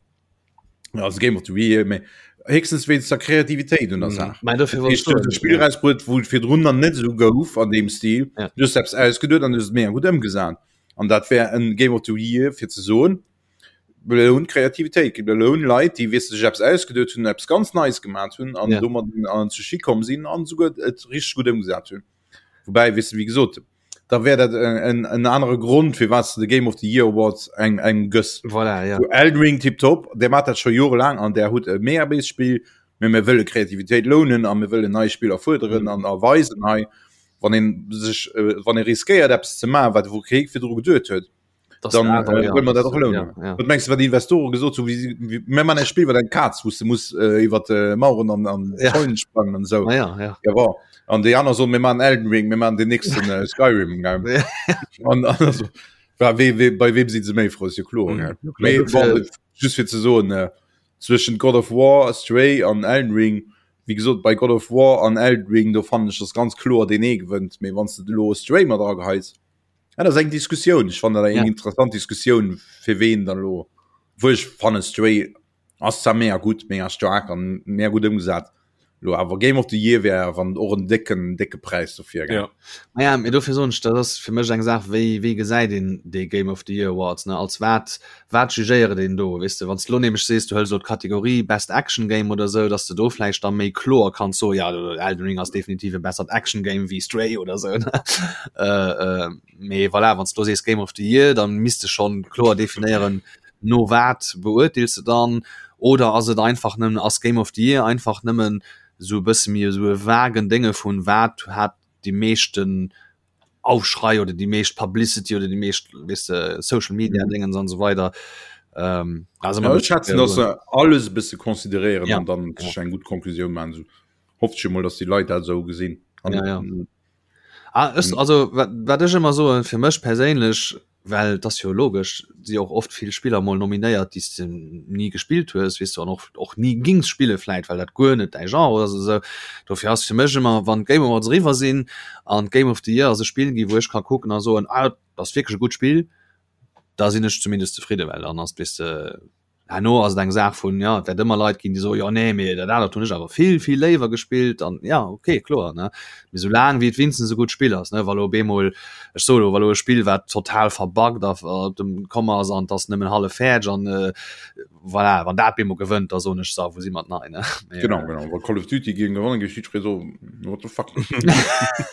also Game of the Year, mee héchstens wéinst der Kreativitéit un der Saach. Mä dofir wollt ech Du hues soen, e Spill erausbruet, wou et virdrun nach net esou gouf an deem Stil. Ja. Du hues eppes ausgeduet an du hues et mega gutt ëmgesat. An dat wär en Game of the Year fir ze soen, belount Kreativitéit, belount Leit, déi weess de sech eppes ausgeduet hunn, eppes ganz Neies gemat hunn an Ja. domat an zu Schi komm sinn an esouguer et richteg gutt ëmgesat hunn. Woubäi, weess de, wéi gesot, da wär dat en, en anere Grond, firwat s de de Game of the Year Award eng, engem gëss. Voilà, ja. Zu Elden Ring tiptop, där mat dat scho jorelaang an där hutt e mega béist Spill, mee mir wëlle Kreativitéit lounen a mir wëllen nei Spiller fuerderen an erweisen hei, wann een sech, wann ee riskéiert eppes ze maachen, wat wou kee virdru geduet huet, Das dann awer, äh, ja, wëll man dat das- och lounen. ja, ja. Wat mengst du, wat die Investoren gesot hu, wie, wie, mir man e Spill, wat eng Kaz, wou du muss äh, iwwer äh, Mauern an, an Ja. Zäunen sprangen an sou. Ah, ja, ja. Ja, war. An déi aner soen, mir man Elden Ring, mir man den nächsten äh, Skyrim. Gell? Ja. An, an also, war, we, we, bei wem si se méi frou, ist jo kloer. Mhm. Gell? Mee, Dofir- bon, just fir ze soen, äh, zwëschen God of War, Stray an Elden Ring, wéi gesot, bei God of War an Elden Ring, do fannen ech, dass ganz kloer deen ee gewënnt. Mee wann s de elo Stray mat erageheis, ja, dat ass eng Diskussioun. Ech fannen dat eng Ja. interessant Diskussioun, fir ween dann elo, wou ech fannen, Stray ass zwar mega gutt, mega staark an mega gutt ëmgesat, elo awer Game of the Year wär wann och en décken, décke Präis dofir, gell. Ja. Naja, mee dofir soen ech, dat ass fir mech eng Saach, wéi, wéi gesäit een dee Game of the Year Awards, ne? Als wat, wat jugéiert een do, weess de? Wann s de elo nämlech sees, du hëls elo d'Kategorie Best Action Game oder esou, dass de do vläicht da méi kloer kanns soen, ja, Elden Ring ass definitiv e bessert Action Game wéi Stray oder esou, ne? Mee voilà, wann s de elo sees Game of the Year, da misst de schonn kloer definéieren, no wat beurteels de dann? Oder ass et einfach nëmmen, ass Game of the Year einfach nëmmen esou e bësse méi esou e vagen Dénge vun wat hat déi meeschten Aufschrei oder déi meescht Publicity oder déi meescht weess de Social Media Dingens an esou weider. Ähm, also ja, ech schätzen, dass se alles e bësse consideréieren ja. an dann sech eng gutt Konklusioun maachen. Esou hofft ech emol, dass déi Leit dat esou gesinn. An, ja, ja. Ah, ech, also wat, wat ech ëmmer soen, fir mech perséinlech, well et ass jo logesch, si och oft vill Spiller mol nominéiert, déi s de ni gespillt hues, weess du, an och, och ni gings spille vläit, well dat guer net däi Genre ass oder esou. Dofir ass fir mech ëmmer, wann d'Game Awards eriwwer sinn an d'Game of the Year ass e Spill ginn, wou ech ka kucken a soen, ah, dat ass wierklech e gutt Spill, da sinn ech zumindest zefridde, well dann ass, weess de, Herno ass et eng Saach vun, jo, et wäert ëmmer Leit ginn, déi soen, jo, nee, mee dat anert hunn ech awer vill, vill léiwer gespillt an ja, okay, kloer, ne. Mee soulaang wéi et wéinstens e gutt Spill ass, ne, wa lo op eemol, ech soe lo, wa lo e Spill, wat total verbuggt a op dem komm ass an et ass nëmmen hallef fäerdeg an voilà, wann dat op eemol gewënnt, da soen ech, so, wou si mer nei, ne. Mee, genau, genau, wa Call of Duty géing gewannen, géif jiddweree soen, what the fuck.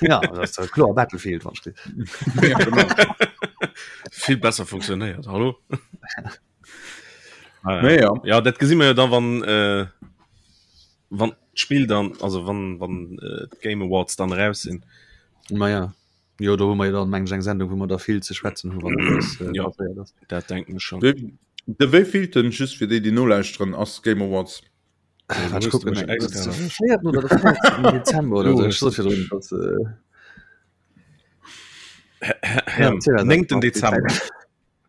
Ja, dat ass kloer Battlefield, wann ech. Ja, genau. Vill besser funktionéiert, hallo? Ah, ja. ja. ja dat gesinn mir da wann äh, wann d'Spill dann also wann wann äh, Game Awards dann raus sinn. Ma ja Jo do hu mer dann meng eng Sendung, wou mer da vill ze schwätzen hu wann das, äh, ja, dat denken schon. De, de wéivielten just fir déi déi nolauschteren ass Game Awards? Äh, wat kucken, oder Dezember oder so. Ich so dass, äh... ja, 9. Dezember.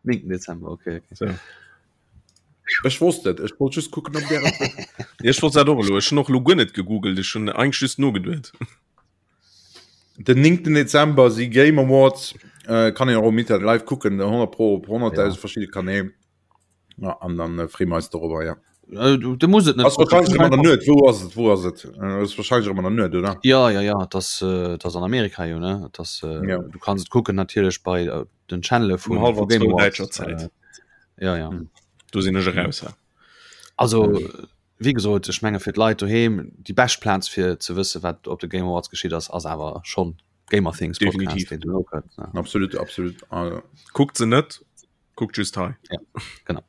9. Dezember okay, okay. So. Ech wosst et, ech wollt just kucken op der Ech wollt dat och elo. Ech hunn och elo guer net gegoogelt, ech hunn eigentlech just nogeduet. Den 9. Dezember si Game Awards, äh, kann een och um Internet live kucken, 100 pro op 100.000 ja. verschiedene Kanäl. Ja, an dann äh, freeë mer eis dorobber, ja. Äh, du, du muss et net. Ass wahrscheinlich ëmmer der Nuet. Wou ass et? Wou ass et? Äh, ass wahrscheinlich ëmmer der Nuet, oder? Ja, ja, ja, das, äh, das an Amerika jo, ne? Das, äh, ja. Du kannst et kucken natierlech bei äh, den Channel vun um Game Awards. Däitscher Zäit. Äh, ja, ja. Hm. Do sinn ech eraus. Ja. Also, wéi gesot, ech menge fir d'Leit doheem, déi bescht Plaz fir ze wësse wat op de Game Awards geschitt ass, ass awer schonn Gamer Things Podcast, deen do kënnt. Ja. Absolut, absolut. Also. Kuckt se net, kuckt just hei. Ja, genau.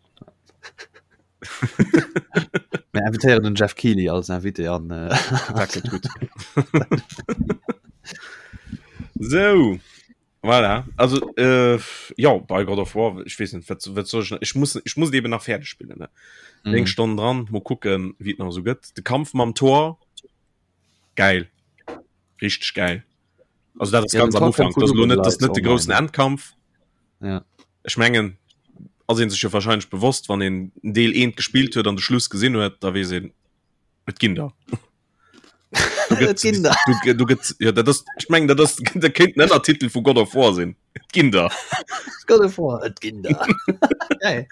Mir invitéieren den Jeff Keighley als Invité an. Äh, Dat gëtt gutt. So. Voilà. Also äh, ja bei God of War ich wees net wat, wat soll ich, ich muss ich muss eben nach fertig spillen ne mhm. Eng Stonn dran mo kucken wie et nach so gëtt de Kampf mam Tor geil richtig geil also dat ist ja, ganz am Anfang das net das net de großen Endkampf ja. ich mengen ass een sech jo wahrscheinlich bewosst wann een Deel eent gespielt huet an de Schluss gesinn huet da wees een et ginn der Du, du gëtt ja, dat ass, ich meng dat ass der kéint en Ënnertitel vu God of War sinn. Et ginn der. God of War, et ginn der. Geil.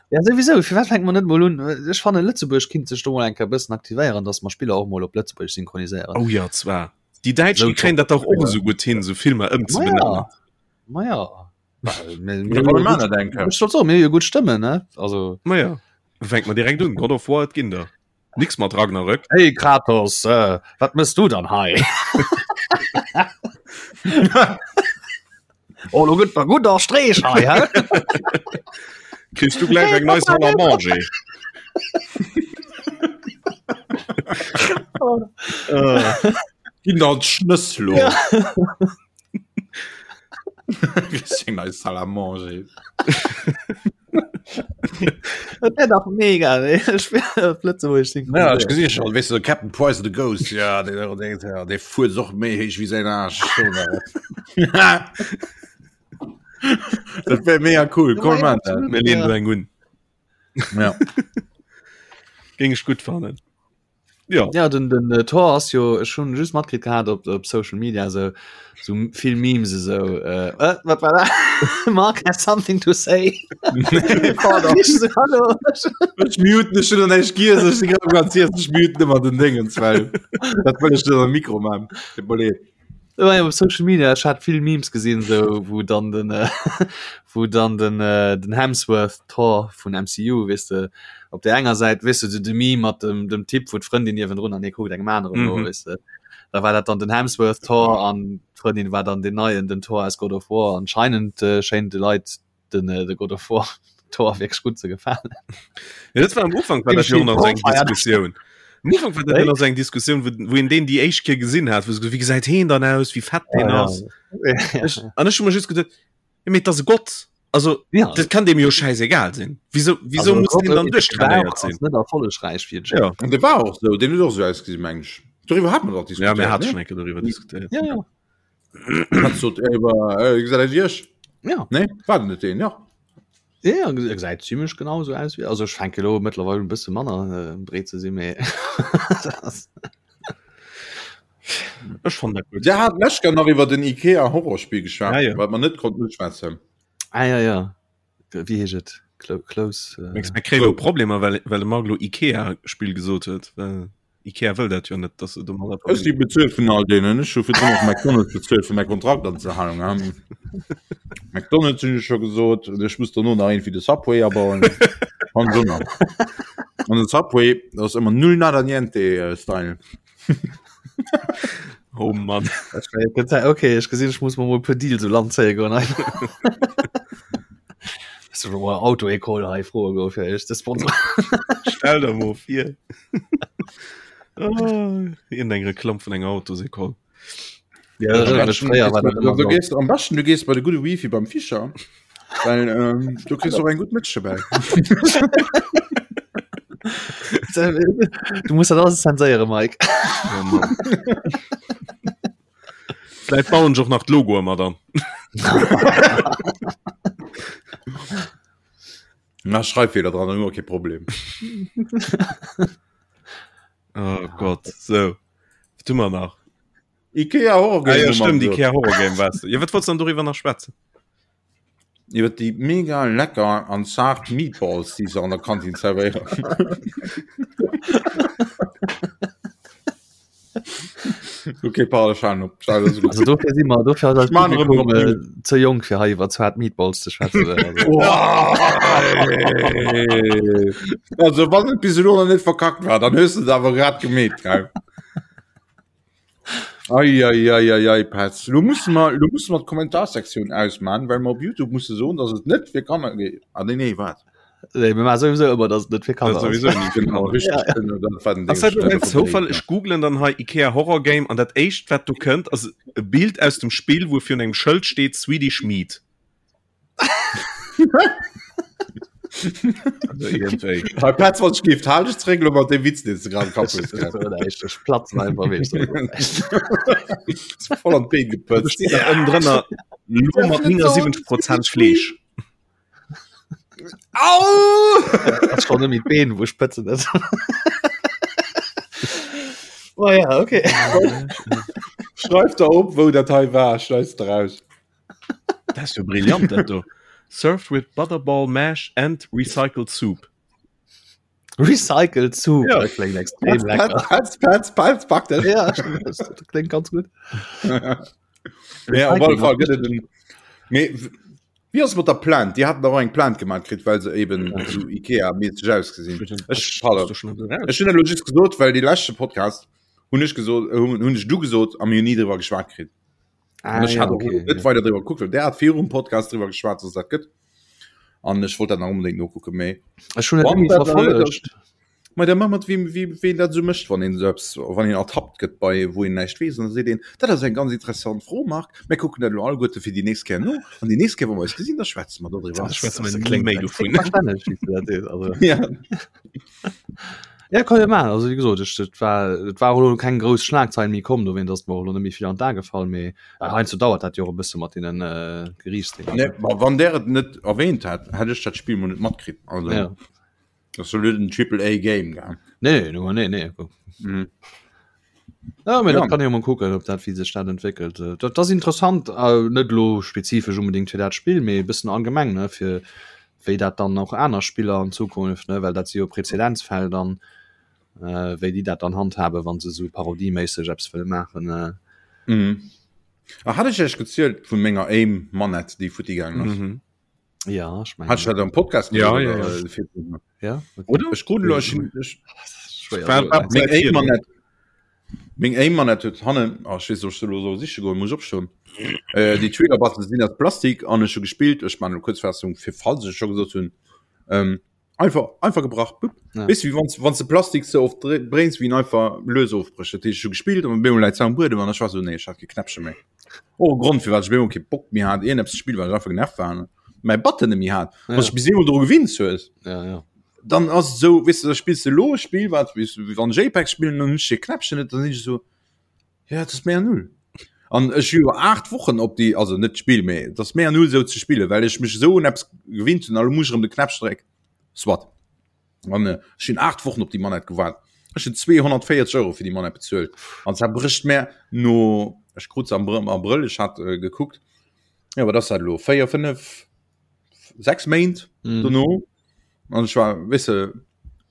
Ja souwisou, firwat fänke mer net mol un? Ech fannen Lëtzebuerg kinnt sech do mol eng Kéier e bëssen aktivéieren, datt mer Spiller och mol op Lëtzebuergesch synchroniséieren. Oh ja zwar. Déi Däitsch déi kréien dat dach och esou gutt hin, esou Filmer ëmzebenennen. Ma ja. Ma ja. Ech sollt soen, mir hu jo gutt Stëmmen, ne? Also. Ma ja. Fänke mer direkt un, God of War, et ginn der. Nix mat Ragnarök. Hey Kratos, äh, wat mëss du dann hei? oh, lo gëtt mer gutt a Streech hei, hä? Kriss du gläich eng nei Salle à manger. Ginn der d'Schnëss lo. Ja. Eng nei Salle à manger. Dat wär dach mega, ey. Ech wär op Lëtzebuergesch Ja, ech gesi schon, weißt du, Captain Price the Ghost, ja, der, der, der, der fuert och méi héich wéi säin Aarsch. Dat wär mega cool, komm man dat. Mir leen do eng un. Ja. Géing ech gutt fannen. Ja. Ja, den, den äh, Thor ass jo ech hunn just matkritt gehat op, op Social Media so, so vill Memes esou. Äh, äh, wat war dat? Mark has something to say. Ich so, Hallo. Ech muten ech hun näischt giess, ech si grad ganz iess, ech muten ëmmer den Dingens, well dat wëll ech net am Mikro man. Tut mer leed. Ja, op Social Media ech hat vill Memes gesinn so wou dann den äh, wou dann den äh, den Hemsworth Thor vun MCU weess de op der enger Säit weess de de Meme mat dem dem Typ wou d'Frëndin niewendrun an hie kuckt engem aneren no mhm. weess de da war dat dann den Hemsworth Thor an d'Frëndin war dann den neien den Thor aus God of War anscheinend äh, schéint de Leit den äh, de God of War. Tor wierklech gutt ze gefalen. Ja, dat war am Ufank war dat jo nach eng Diskussioun. Am Ufank war dat nach eng Diskussioun, wou, wou een deen déi éischt Kéier gesinn hat, wou se wéi gesäit heen dann aus, wéi fett deen ja, ass. Ja. Ech, an ech hu mer just geduet, ja, mee et ass e Gott. Also ja. dat kann dem jo scheißegal sinn. Wieso, wieso also, muss den dann duerchtrainéiert sinn? Net erfollegräich fir ja. An de war och sou, den huet och sou ausgesinn, meng ech. Doriwwer hat mer dach diskutéiert. Ja, mir hat schon eng Kéier doriwwer diskutéiert. Ja, ja. Ja. Nee, war net den ja. Ja, e gesäit zimmlech genau sou aus wéi also ech fänke lo mëttlerweil un bësse manner äh, breet ze sinn, mee Ech fand dat gutt. Der hat lech nach iwwer den Ikea Horrorspiel geschwat, ja, ja. wat man net konnt schwätzen. Ah ja ja wéi heescht et Close äh... Mir kréie lo Problemer well well de Marc lo Ikea Spill gesot huet. Well Ikea wëll dat jo net, dass se domadder Ech si bezuelt vun all deenen. Ech hu virdrun och McDonald's bezuelt fir mäi Kontrakt anzehalen. Ähm, McDonald's hunn ech scho gesot. Und ech muss dono nach irgendwie de Subway abauen. An so nach. An den Subway, das ass ëmmer null nada niente äh, Style. Oh Mann. Okay, ech gesinn, ech muss mer mol e puer Deals u Land zéie goen. Auto-École hei froe goe fir iech ze sponsoren. Stell der mol vir. Oh, eng Reklamm vun enger Autosécole. Ja, am besten, fréier war dat du gehst, am besten du gehst bei de gute Wifi beim Fischer. Weil, ähm, du kriegst och eng gut Mëtsch dobäi. Du muss dat alles zenséiere Mike. Oh Mann. Vläit bauen ech och nach d'Logoe mat an. Na Schreibfehler dran, dann hu mer kee Problem. Oh Gott, so. Wat hu mer nach? Ikea Horror Game. Ah, ja, stimmt, Ikea Horror Game warst du. Ja, wat wolltest du dann darüber nach schwätzen? Iwwer déi mega lecker an zart Meatballs, déi se an der Kantin zerwéieren. Okay, pardon, ech halen op. Also dofir si mer dofir ass eist Publikum äh, ze jonk fir hei iwwer zart Meatballs ze schwätzen. Also. Also wann et bis elo nach net verkackt war, dann hues du et awer grad gemeet, gell? Ei, ei, ei, ei, ei, Petz. Lo musse mer, lo musse mer d'Kommentarsektioun ausman, well mer op YouTube musse soen, dass et net fir Kanner geet. Ah, nee, nee, wat? Nee, mir maache souwisou ëmmer, dass et net fir Kanner ass. Sowieso nicht. Genau, richtig. Ja, ja. Dat war den Ding. Ass dat elo en Zoufall? Ech googlen dann hei Ikea Horror Game an dat éischt wat do kënnt ass e Bild aus dem Spill wou virun engem Schëld steet Swedish Meat. Bei Platz wat gift halt ech zréck lo mat dem Witz den du grad kapp hues. Ech platzen einfach weess du. Voll an d'Been gepëtzt. Steet nach ënnen drënner lo mat 79 Prozent Fleesch. Au! Ass schon nëmme d'Been wou ech pëtzen net. Oh ja, okay. Schreif der op wou dat hei war, schneis de raus. Dat ass jo brillant dat do. Served with butterball mash and recycled soup. Recycled soup, ja. dat kléngt extrem lecker. Petz, Petz, Petz, pack dat. Ja, dat kléngt ganz gutt. Ja, op alle Fall gëtt et en. Mee wéi ass et mat der Plainte? Déi haten dach och eng Plainte gemaach kritt, well se eben esou Ikea-mässeg ausgesinn. Ech, pardon. Ech hunn dat elo just gesot, well dee leschte Podcast hunn ech gesot, hunn ech du gesot a mir hunn ni driwwer geschwat kritt. Ah, ech ja, hat okay, net ja. weider driwwer gekuckt, well der hat virum Podcast driwwer geschwat, dass dat gëtt. An ech wollt dat nach unbedingt nokucken, mee Ech hunn et Wann nie dat verfollegt. Ma der mat wie wie ween dat sou mécht, wann een sou eppes wann een ertappt gëtt bei wou een näischt weess, an da seet een, dat ass eng ganz interessant Fro Marc, mir kucken dat elo alleguerte fir déi nächst Kéier no an déi nächst Kéier wa mer eis gesinn, da schwätze mer dodriwwer. Da schwätze mer ni méi dovun. Verstänneg, wéi s du dat sees, also. Ja. Ja, kann jo maachen. Also wéi gesot, ech, et war, et war och elo keng grouss Schlagzeil méi komm, dowéint ass et mer och elo net méi vill an d'A gefall, mee well heiansdo dauert dat jo och e bësse mat deenen äh, Geriichtsdénger. Nee, ma wann der et net erwähnt hätt, hätt ech dat Spill mol net matkritt. Also Ja. dat ass jo net en Triple A Game, gell? Nee, no, nee, nee. Mhm. Ja, mee Ja. dat kann ee jo mol kucken, ob dat, wéi sech dat entwéckelt. Äh, Dat ass interessant, äh, net elo spezifesch unbedingt fir dat Spill, mee e bëssen allgemeng, ne, fir wéi dat dann och aner Spiller an Zukunft, ne, well dat si jo Präzedenzfäll dann, äh, wéi déi dat dann handhaben, wa se esou parodieméisseg eppes wëlle maachen. Äh. Mhm. Ah, hat ech Iech gezielt vu menger Aim Manette, déi futti gaangen ass? Mhm. Ja, ech mengen. Hat ech dat am Podcast Ja, gesot, ja, oder, ja. äh, virdrun? Ja, okay. Oder? Ech krut elo, ech hunn, ech, Schwéier War- soen. war- Meng Seit Aim virdrun. Manette, Meng Aim Manette huet hannen, oh, ech weess net, ob ech se elo soll siche goen, muss ech opstoen. Äh, déi Trigger Buttons sinn aus Plastik an ech hu gespillt, ech man elo Kuerzfassung, fir falls ech et scho gesot hunn. Ähm, einfach einfach gebrach ja. weißt, wie wann wann de Plastik so oft bréngs wie einfach lös ofbrecht dat schon gespielt und bemol läit am Buedem an war so nee ich hat geknäppche méi oh Grund fir wat ich bemol ke Bock mir hat een Spiel war einfach genervt waren mein Button mir hat ja. was bis dro gewinnt hues ja, ja. dann ass so wis du, da spielst du lo Spiel wat wie wann JPEG spielen und nicht Knäppchen net dann ich so ja das mehr null an ech hu 8 Wochen op die also net Spiel méi das mehr null so ze spiele well ech mech so un Apps gewinnt hun alle muss um de Knäppchen dreck swat an äh, ech hun 8 Wochen op die Manette gewaart ech hun 240 Euro fir die Manette bezuelt an zwar bricht mir no ech krut se am Abrëll ech hat äh, gekuckt ja aber das hat lo 4 5 6 Méint mm. dono An ech war weess de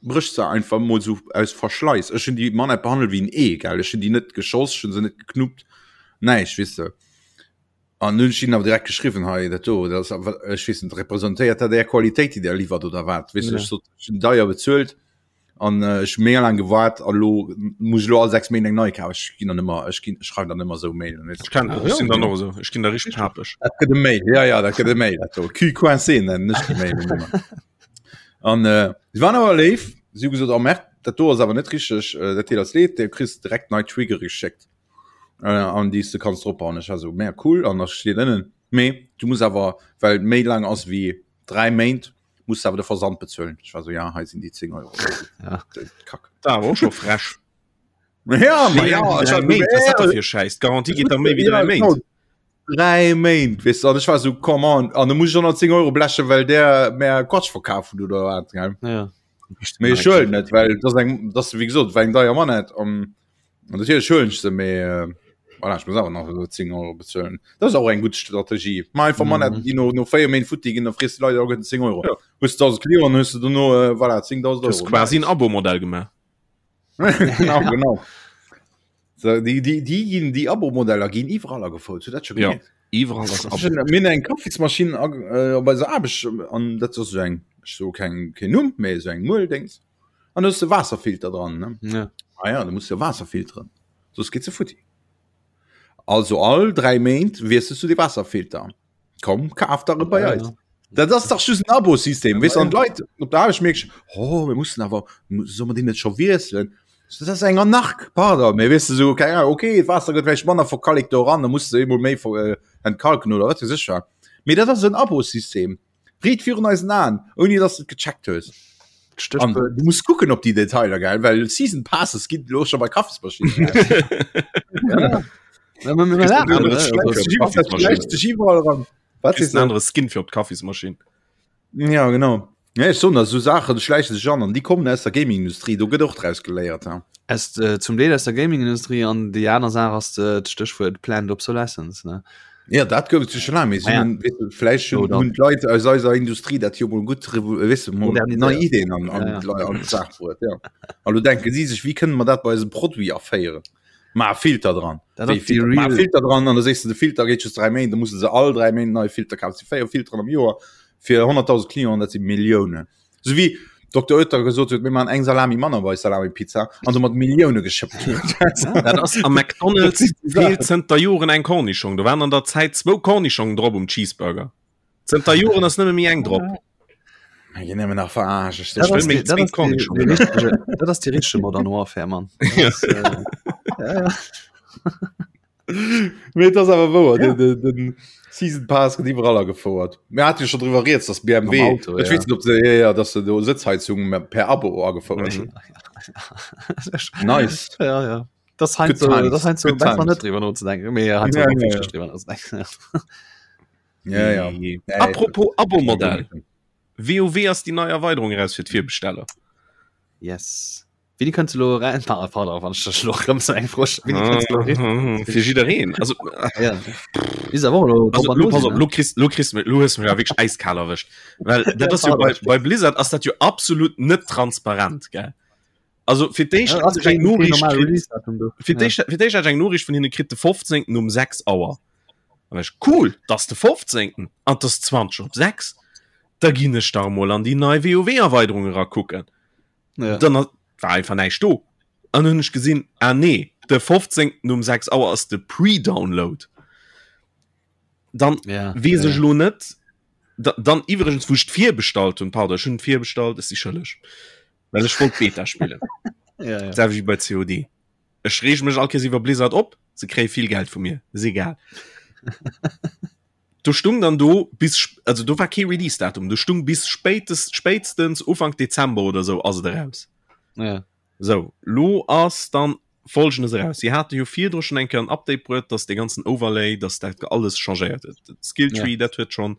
brécht se einfach mol sou aus Verschleiss. Ech hunn déi Manette behandelt wéi en Ee, gell. Ech hunn déi net geschoss, ech hunn se net geknuppt, näischt, weess de. An hunn ech hinnen awer direkt geschriwwen, hei dat do, dat ass awer, ech weess net, representéiert dat Är Qualitéit, déi Der liwwert oder wat, weess de. Ech sot, ech hunn deier bezuelt an ech hu mega laang gewaart a lo muss ech lo all 6 Méint eng nei kafen. Ech ginn dann ëmmer, ech ginn, ech schreiwen dann ëmmer esou Mailen, weess de. Ech kennen dat, ech sinn dann och esou, ech ginn da richteg papeg. Dat gëtt e Mail, ja, ja, dat gëtt e Mail, dat do. Cul coincé nennen ech déi Mailen ëmmer. An äh, si waren awer léif, si hu gesot, oh Merde, dat do ass awer net richteg, äh, dat deet eis leed, du kriss direkt nei Triggere geschéckt, äh, an déi s du kanns dropbauen. Ech war esou, mega cool, an da steet ënnen, mee du muss awer, well méi laang ass wéi 3 Méint, muss du awer de Versand bezuelen. Ech war esou, ja, hei sinn déi 10 Euro. Ja. Kack. Da awer och scho frech. Ja, ma ja, ech war Méint, was dat da fir Schäiss? D'Garantie geet da méi wéi 3 Méint. 3 Méint, weess du, an ech war esou, come on, an da muss ech 110 Euro blechen, well der mär Quatsch verkaf huet oder wat, gell? Ja. Mee ech huelen net, well dat ass eng, dat ass wéi gesot, war eng deier Manette an an natierlech huelen ech se, mee äh, voilà, ech muss awer nach esou 10 Euro bezuelen. Dat ass och eng gutt Strategie. Maach einfach Manetten, déi no, no 4 Méint futti ginn, da frees de Leit alleguerten 10 Euro. Ja. Hues 1.000 Clienten, hues de dono, äh, voilà, 10.000 Du hues Euro. quasi en Abo-Modell gemaach. Genau, genau. So, déi, déi, déi ginn, déi Abo-Modeller ginn iwwerall agefouert. Hutt dat scho Ja. gemierkt? Iwwerall ass Abo. Mir hunn eng Kaffismaschinn äh, op eiser Aarbecht an dat ass esou eng, ech soe keng, keen Numm, mee esou eng Mueldéngs. An do ass de Waasserfilter dran, ne? Ja. Ah ja, du muss jo Waasser filteren, soss geet se futti. Also all 3 Méint wiesselst du de Waasserfilter. Komm, kaf der e bei Ja, eis. ja. Dat ass dach just en Abo-System, weess du, an Ja. d'Leit op der Aarbecht mierkst, oh, mir mussen awer, soll mer deen net scho wiesselen? Dat ass eng Anark, pardon, mee weess du, sou, keng Ahnung, okay, d'Waasser gëtt vläicht manner verkalekt do eran, da muss de eemol méi ver äh, entkalken oder wat weess ech wat. Mee dat ass en Abo-System, riit virun eisen Aen, ouni dass de et gecheckt hues. An Stéchwuert du muss kucken op déi Detailer, gell, well Season Passes ginn elo scho bei Kaffismaschinnen. Ja. Ja, mir- mir lachen, Andere ne? Skin Also, fir op d'Kaffismaschinn. Schläicht sech iwwerall eran. Wat Kriss sees en du? anere Skin fir op d'Kaffismaschinn. Ja, genau. Ja, ech soen der, esou Saachen schläiche sech an an déi kommen aus der Gaming-Industrie, do gëtt och draus geléiert. Ha. Aus, äh, zum Deel aus der Gaming-Industrie an déi aner Saach ass äh, d'Stéchwuert Planned Obsolescence, ne? Ja, dat gouf et jo scho laang, mee si Ah ja. hunn, weess du, vläicht hunn, Oder- hunn d'Leit aus eiser Industrie dat jo mol gutt, revo- weess du, mol Moderniséiert. nei Ideen an, an, Ja, ja. d'Lei- an d'Saach bruet. Ja. A lo denke si sech, wéi kënne mer dat bei eisem Produit aféieren? Ma Filter dran. Dat Wéi ass déi Filter? Ma real- Filter dran an da sees du, de Filter geet just 3 Méint, da musse se all 3 Méint neie Filter kafen. Dat si 4 Filteren am Joer fir 100.000 Clienten, dat si Milliounen. Sou wéi Dr. Oetker gesot huet, mir maachen eng Salami manner bei Salami-Pizza an domat Millioune geschëppt huet. Dat ass am McDonald's feelt zënter Joren eng Kornischong. Do waren an der Zäit zwou Kornischongen drop um Cheeseburger. Zënter Joren ass nëmme méi eng drop. Mir ginn nëmmen nach verarscht. Dat wëll ass meng die- dat zwéin ass die- Kornischongen. die richtege- Dat ass déi richtege Modern Warfare, Mann. Dat ass, äh, ja, ja. Mee et ass awer wouer, den, den, den Season Pass gëtt iwwerall agefouert. Mir hate jo scho driwwer rieds, dass BMW, Am Auto, ech ja. weess net, ob se, ja, ja, dass se do Sëtzheizung per Abo agefouert hunn. Nice. Ja, ja. Das heißt Good so, times. das heißt so Good besser times. net drüber nozedenken. Mee heißt Ja, so, ja, ja. drüber nozedenken. Ja, ja. Nee. Nee, Apropos Abo-Modell. WoW ass déi nei Erweiderung eraus fir d'Virbesteller. Yes. Wéini kënnt se lo rein? Ah, pardon, wann ech dech lo rëm sou eng Fro stellen. Wéini kënnt se lo rein? Fir jiddereen. Also, Ja. Is awer och lo also drop an lo, do pass sinn, op, ne? lo kriss, lo kriss, lo hues du mech awer wierklech äiskal erwëscht. Well dat ass jo bei, bei Blizzard ass dat jo absolut net transparent, gell? Also fir d'éischt Ja, ass hat ech eng keen, keen Noriicht normale kritt, Release-Datum do. fir Ja. d'éischt, fir d'éischt hat ech eng Noriicht vun hinne kritt de 15. um 6 Auer. An ech, cool, dat ass de 15. an 't ass 20 op 6. Da ginn ech da emol an déi nei WoW-Erweiderung erakucken. Ja. Dann war einfach näischt do. An hunn ech gesinn, ah nee, de 15. um 6 Auer ass de Pre-Download. Dann Ja, weess ja, ech lo net. Da, dann iwwregens, wou ech d'virbestallt hunn, pardon, ech hunn virbestallt, ech si schëlleg, well ech wollt d'Beta spillen. Ja, ja. Selwecht wéi bei COD. Ech reege mech all Kéiers iwwer Blizzard op, se kréie vill Geld vu mir, ass egal. Do stung dann do bis, also do war kee Release-Datum, do stung bis spéitest, spéitstens Ufank Dezember oder sou ass et eraus. Ja. Sou, lo ass dann Folgendes eraus, Si hate jo virdru schonn eng Kéier en Update bruet, dass dee ganzen Overlay, dass dat alles changéiert huet. De Skilltree, ja. dat huet schonn,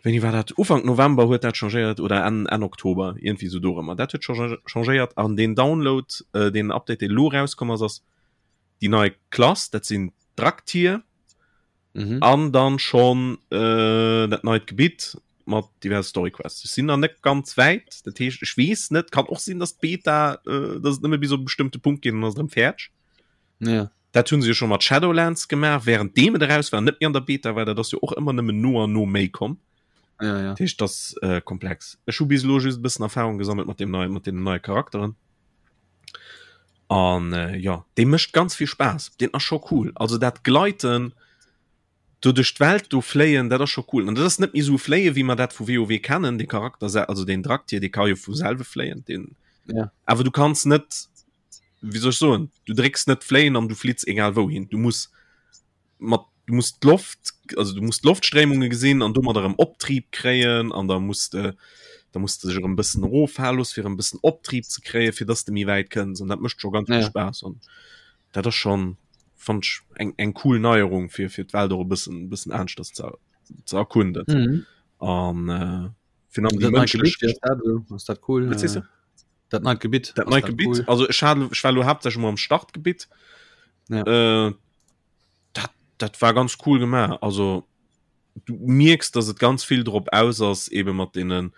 wéini war dat? Ufank November huet dat changéiert oder Enn, Enn Oktober, iergendwéi sou dorëmmer. Dat huet changéiert an deen Download, äh, deen Update, dee lo erauskomm ass, ass déi nei Klass, dat sinn d'Draktyr. Mhm. An dann schon äh, dat neit Gebitt mat diverse Story Quests. Ech sinn nach net ganz wäit, dat heescht ech weess net, kann och sinn, dass d'Beta äh, dass et nëmme bis op e bestëmmte Punkt geet an ass et erëm fäerdeg. Ja. Dat hunn se jo schon mat Shadowlands gemaach, während deem et eraus war, net méi an der Beta war, dat ass jo och ëmmer nëmmen no an no méi komm. Ja, ja. Dat heescht, dat ass äh, komplex. Ech hu bis elo just e bëssen Erfahrung gesammelt mat dem neien, mat deenen neie Charakteren. An äh, ja, dee mécht ganz vill Spaass. Deen ass scho cool. Also dat Gleiten do duerch d'Welt do fléien, dat ass scho cool. An dat ass net méi sou fléie wéi mer dat vu WoW kennen. De Charakter, also den Draktyr, dee ka jo vu selwe fléien. Den, ja. Awer du kanns net, wéi soll ech soen, du drécks net fléien an du flitts egal wouhin. Du muss mat du musst d'Loft also du musst d'Loftstréimunge gesinn an domadder erëm Optrieb kréien an da muss de da muss de sech erëm bëssen eroffale loosse fir erëm bëssen Optrieb ze kréien fir dass de méi wäit kënns an dat mécht scho ganz vill Ja. Spaass an dat ass schonn fand ech eng eng cool Neierung fir fir d'Welt och e bëssen bëssen aneschters ze ze erkunden Mhm. an äh, fir an déi Dat neit Gebitt, mënschlech wéi ass dat esou? Ass dat cool? Wat sees du? Äh, Dat neit Gebitt. Dat ass neit dat Gebitt cool? also ech hat ech war lo haaptsächlech mol am Startgebitt Ja. äh, dat, dat war ganz cool gemaach also du mierks dass et ganz vill drop aus ass eben mat deenen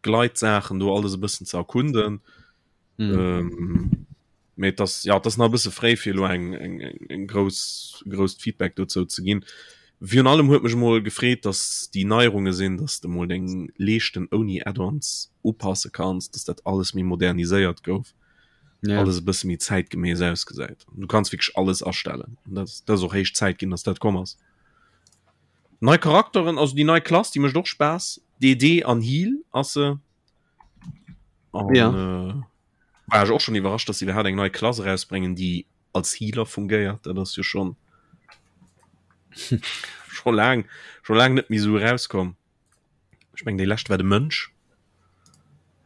Gleitsaachen do alles e bëssen ze erkunden Mhm. ähm, mee das ja das nach e bësse fréi fir lo eng eng eng eng grouss grousst Feedback dozou ze ginn virun allem huet mech mol gefreet dass déi Neierunge sinn dass de mol deng Leeschten ouni Add-ons upasse kanns dass dat alles méi moderniséiert gouf Ja. alles e bësse méi zäitgemäss ausgesäit. Du kanns wierklech alles astellen. An dat, dat ass och héich Zäit ginn, dass dat komm ass. Nei Charakteren, also déi nei Klass, déi mécht och Spaass. DD an Heal ass se. An, Ja. äh, war ech och schon iwwerrascht, dass sie iwwerhaapt eng nei Klass erausbréngen, déi als Healer fungéiert. Dat ass jo schon schon laang, schon laang net méi sou erauskomm. Ech meng déi lescht war de Mönch.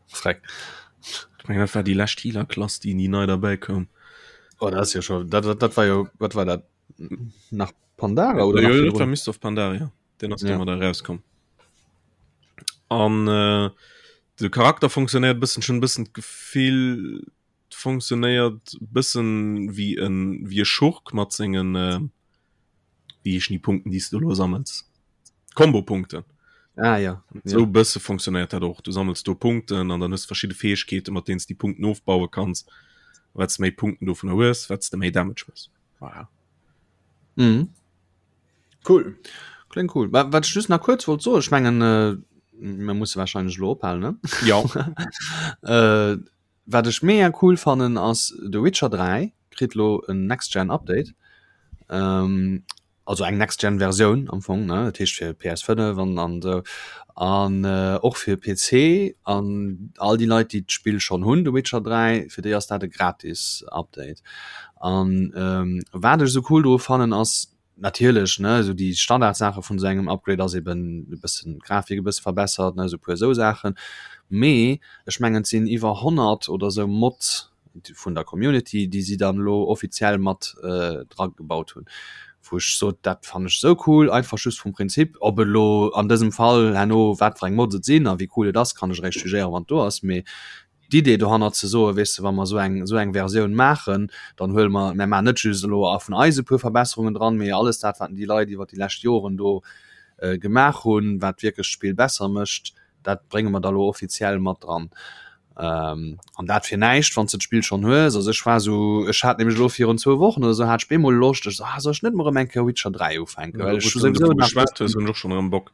Freck. Ech meng dat war déi lescht Healer-Klass, déi déi nei derbäi koum. Oh, dat ass jo schon, dat, dat, dat war jo, wat war dat? Nach Pandara oder Ja, nach dat virdrun? war Mist of Pandaria. Den ass Ja. domadder erauskomm. An äh, de Charakter funktionéiert bëssen schon bëssen d'Gefill funktionéiert bëssen wéi en wéi e Schurk mat sengen äh, wéi heeschen déi Punkten déi s du elo sammels? Kombopunkten. Ah ja. Sou ja. bësse funktionéiert dat och. Du sammels do Punkten an dann hues verschidde Fäegkeete mat deenen s déi Punkten ofbaue kanns. Wat s méi Punkten dovunner hues, wat s de méi Damage hues. Voilà. Mhm. Cool. Klingt cool. Wat ech just nach kuerz wollt soen, ech mengen äh, mir musse wahrscheinlech elo ophalen, ne? Ja. äh, Wat ech mega cool fannen ass The Witcher 3 kritt lo en Next Gen Update. Ähm, also eng Next Gen Versioun am Fong ne dat heescht fir PS5 an an esou an äh, och fir PC an all déi Leit déi d'Spill schonn hunn The Witcher 3 fir déi ass dat e gratis Update. An ähm, wat ech esou cool dru fannen ass Natierlech, ne, esou déi Standardsaache vun esou engem Upgrade ass eben e bëssen d'Grafik e bësse verbessert, ne, esou e puer esou Saachen. Mee ech mengen, et sinn iwwer 100 oder esou Mods vun der Community, déi si dann elo offiziell mat dragebaut hunn, wou ech sot, dat fannen ech esou cool, einfach just vum Prinzip. Ob et elo an dësem Fall herno wat fir eng Mods et sinn a wéi cool et ass, kann ech eréischt jugéieren, wann et do ass. Mee d'Idee dohannert ze soen, weess de, wa mer esou eng, esou eng Versioun maachen, dann huele mer, mer maachen net just elo a vun eis e puer Verbesserungen dran, mee alles dat, wat déi Leit iwwert déi lescht Joren do gemaach hunn, wat wierklech d'Spill besser mécht, dat brénge mer da lo offiziell mat dran. An dat fir näischt, wann s de d'Spill schonn hues. Also ech war esou, ech hat nämlech elo virun zwou Wochen oder esou hat ech bemol Loscht, ech sou, ah soll ech net mol erëm eng Kéier Witcher 3 ufänken, well ech hu souwisou nach Geschwat hues, hunn ech och schonn erëm Bock.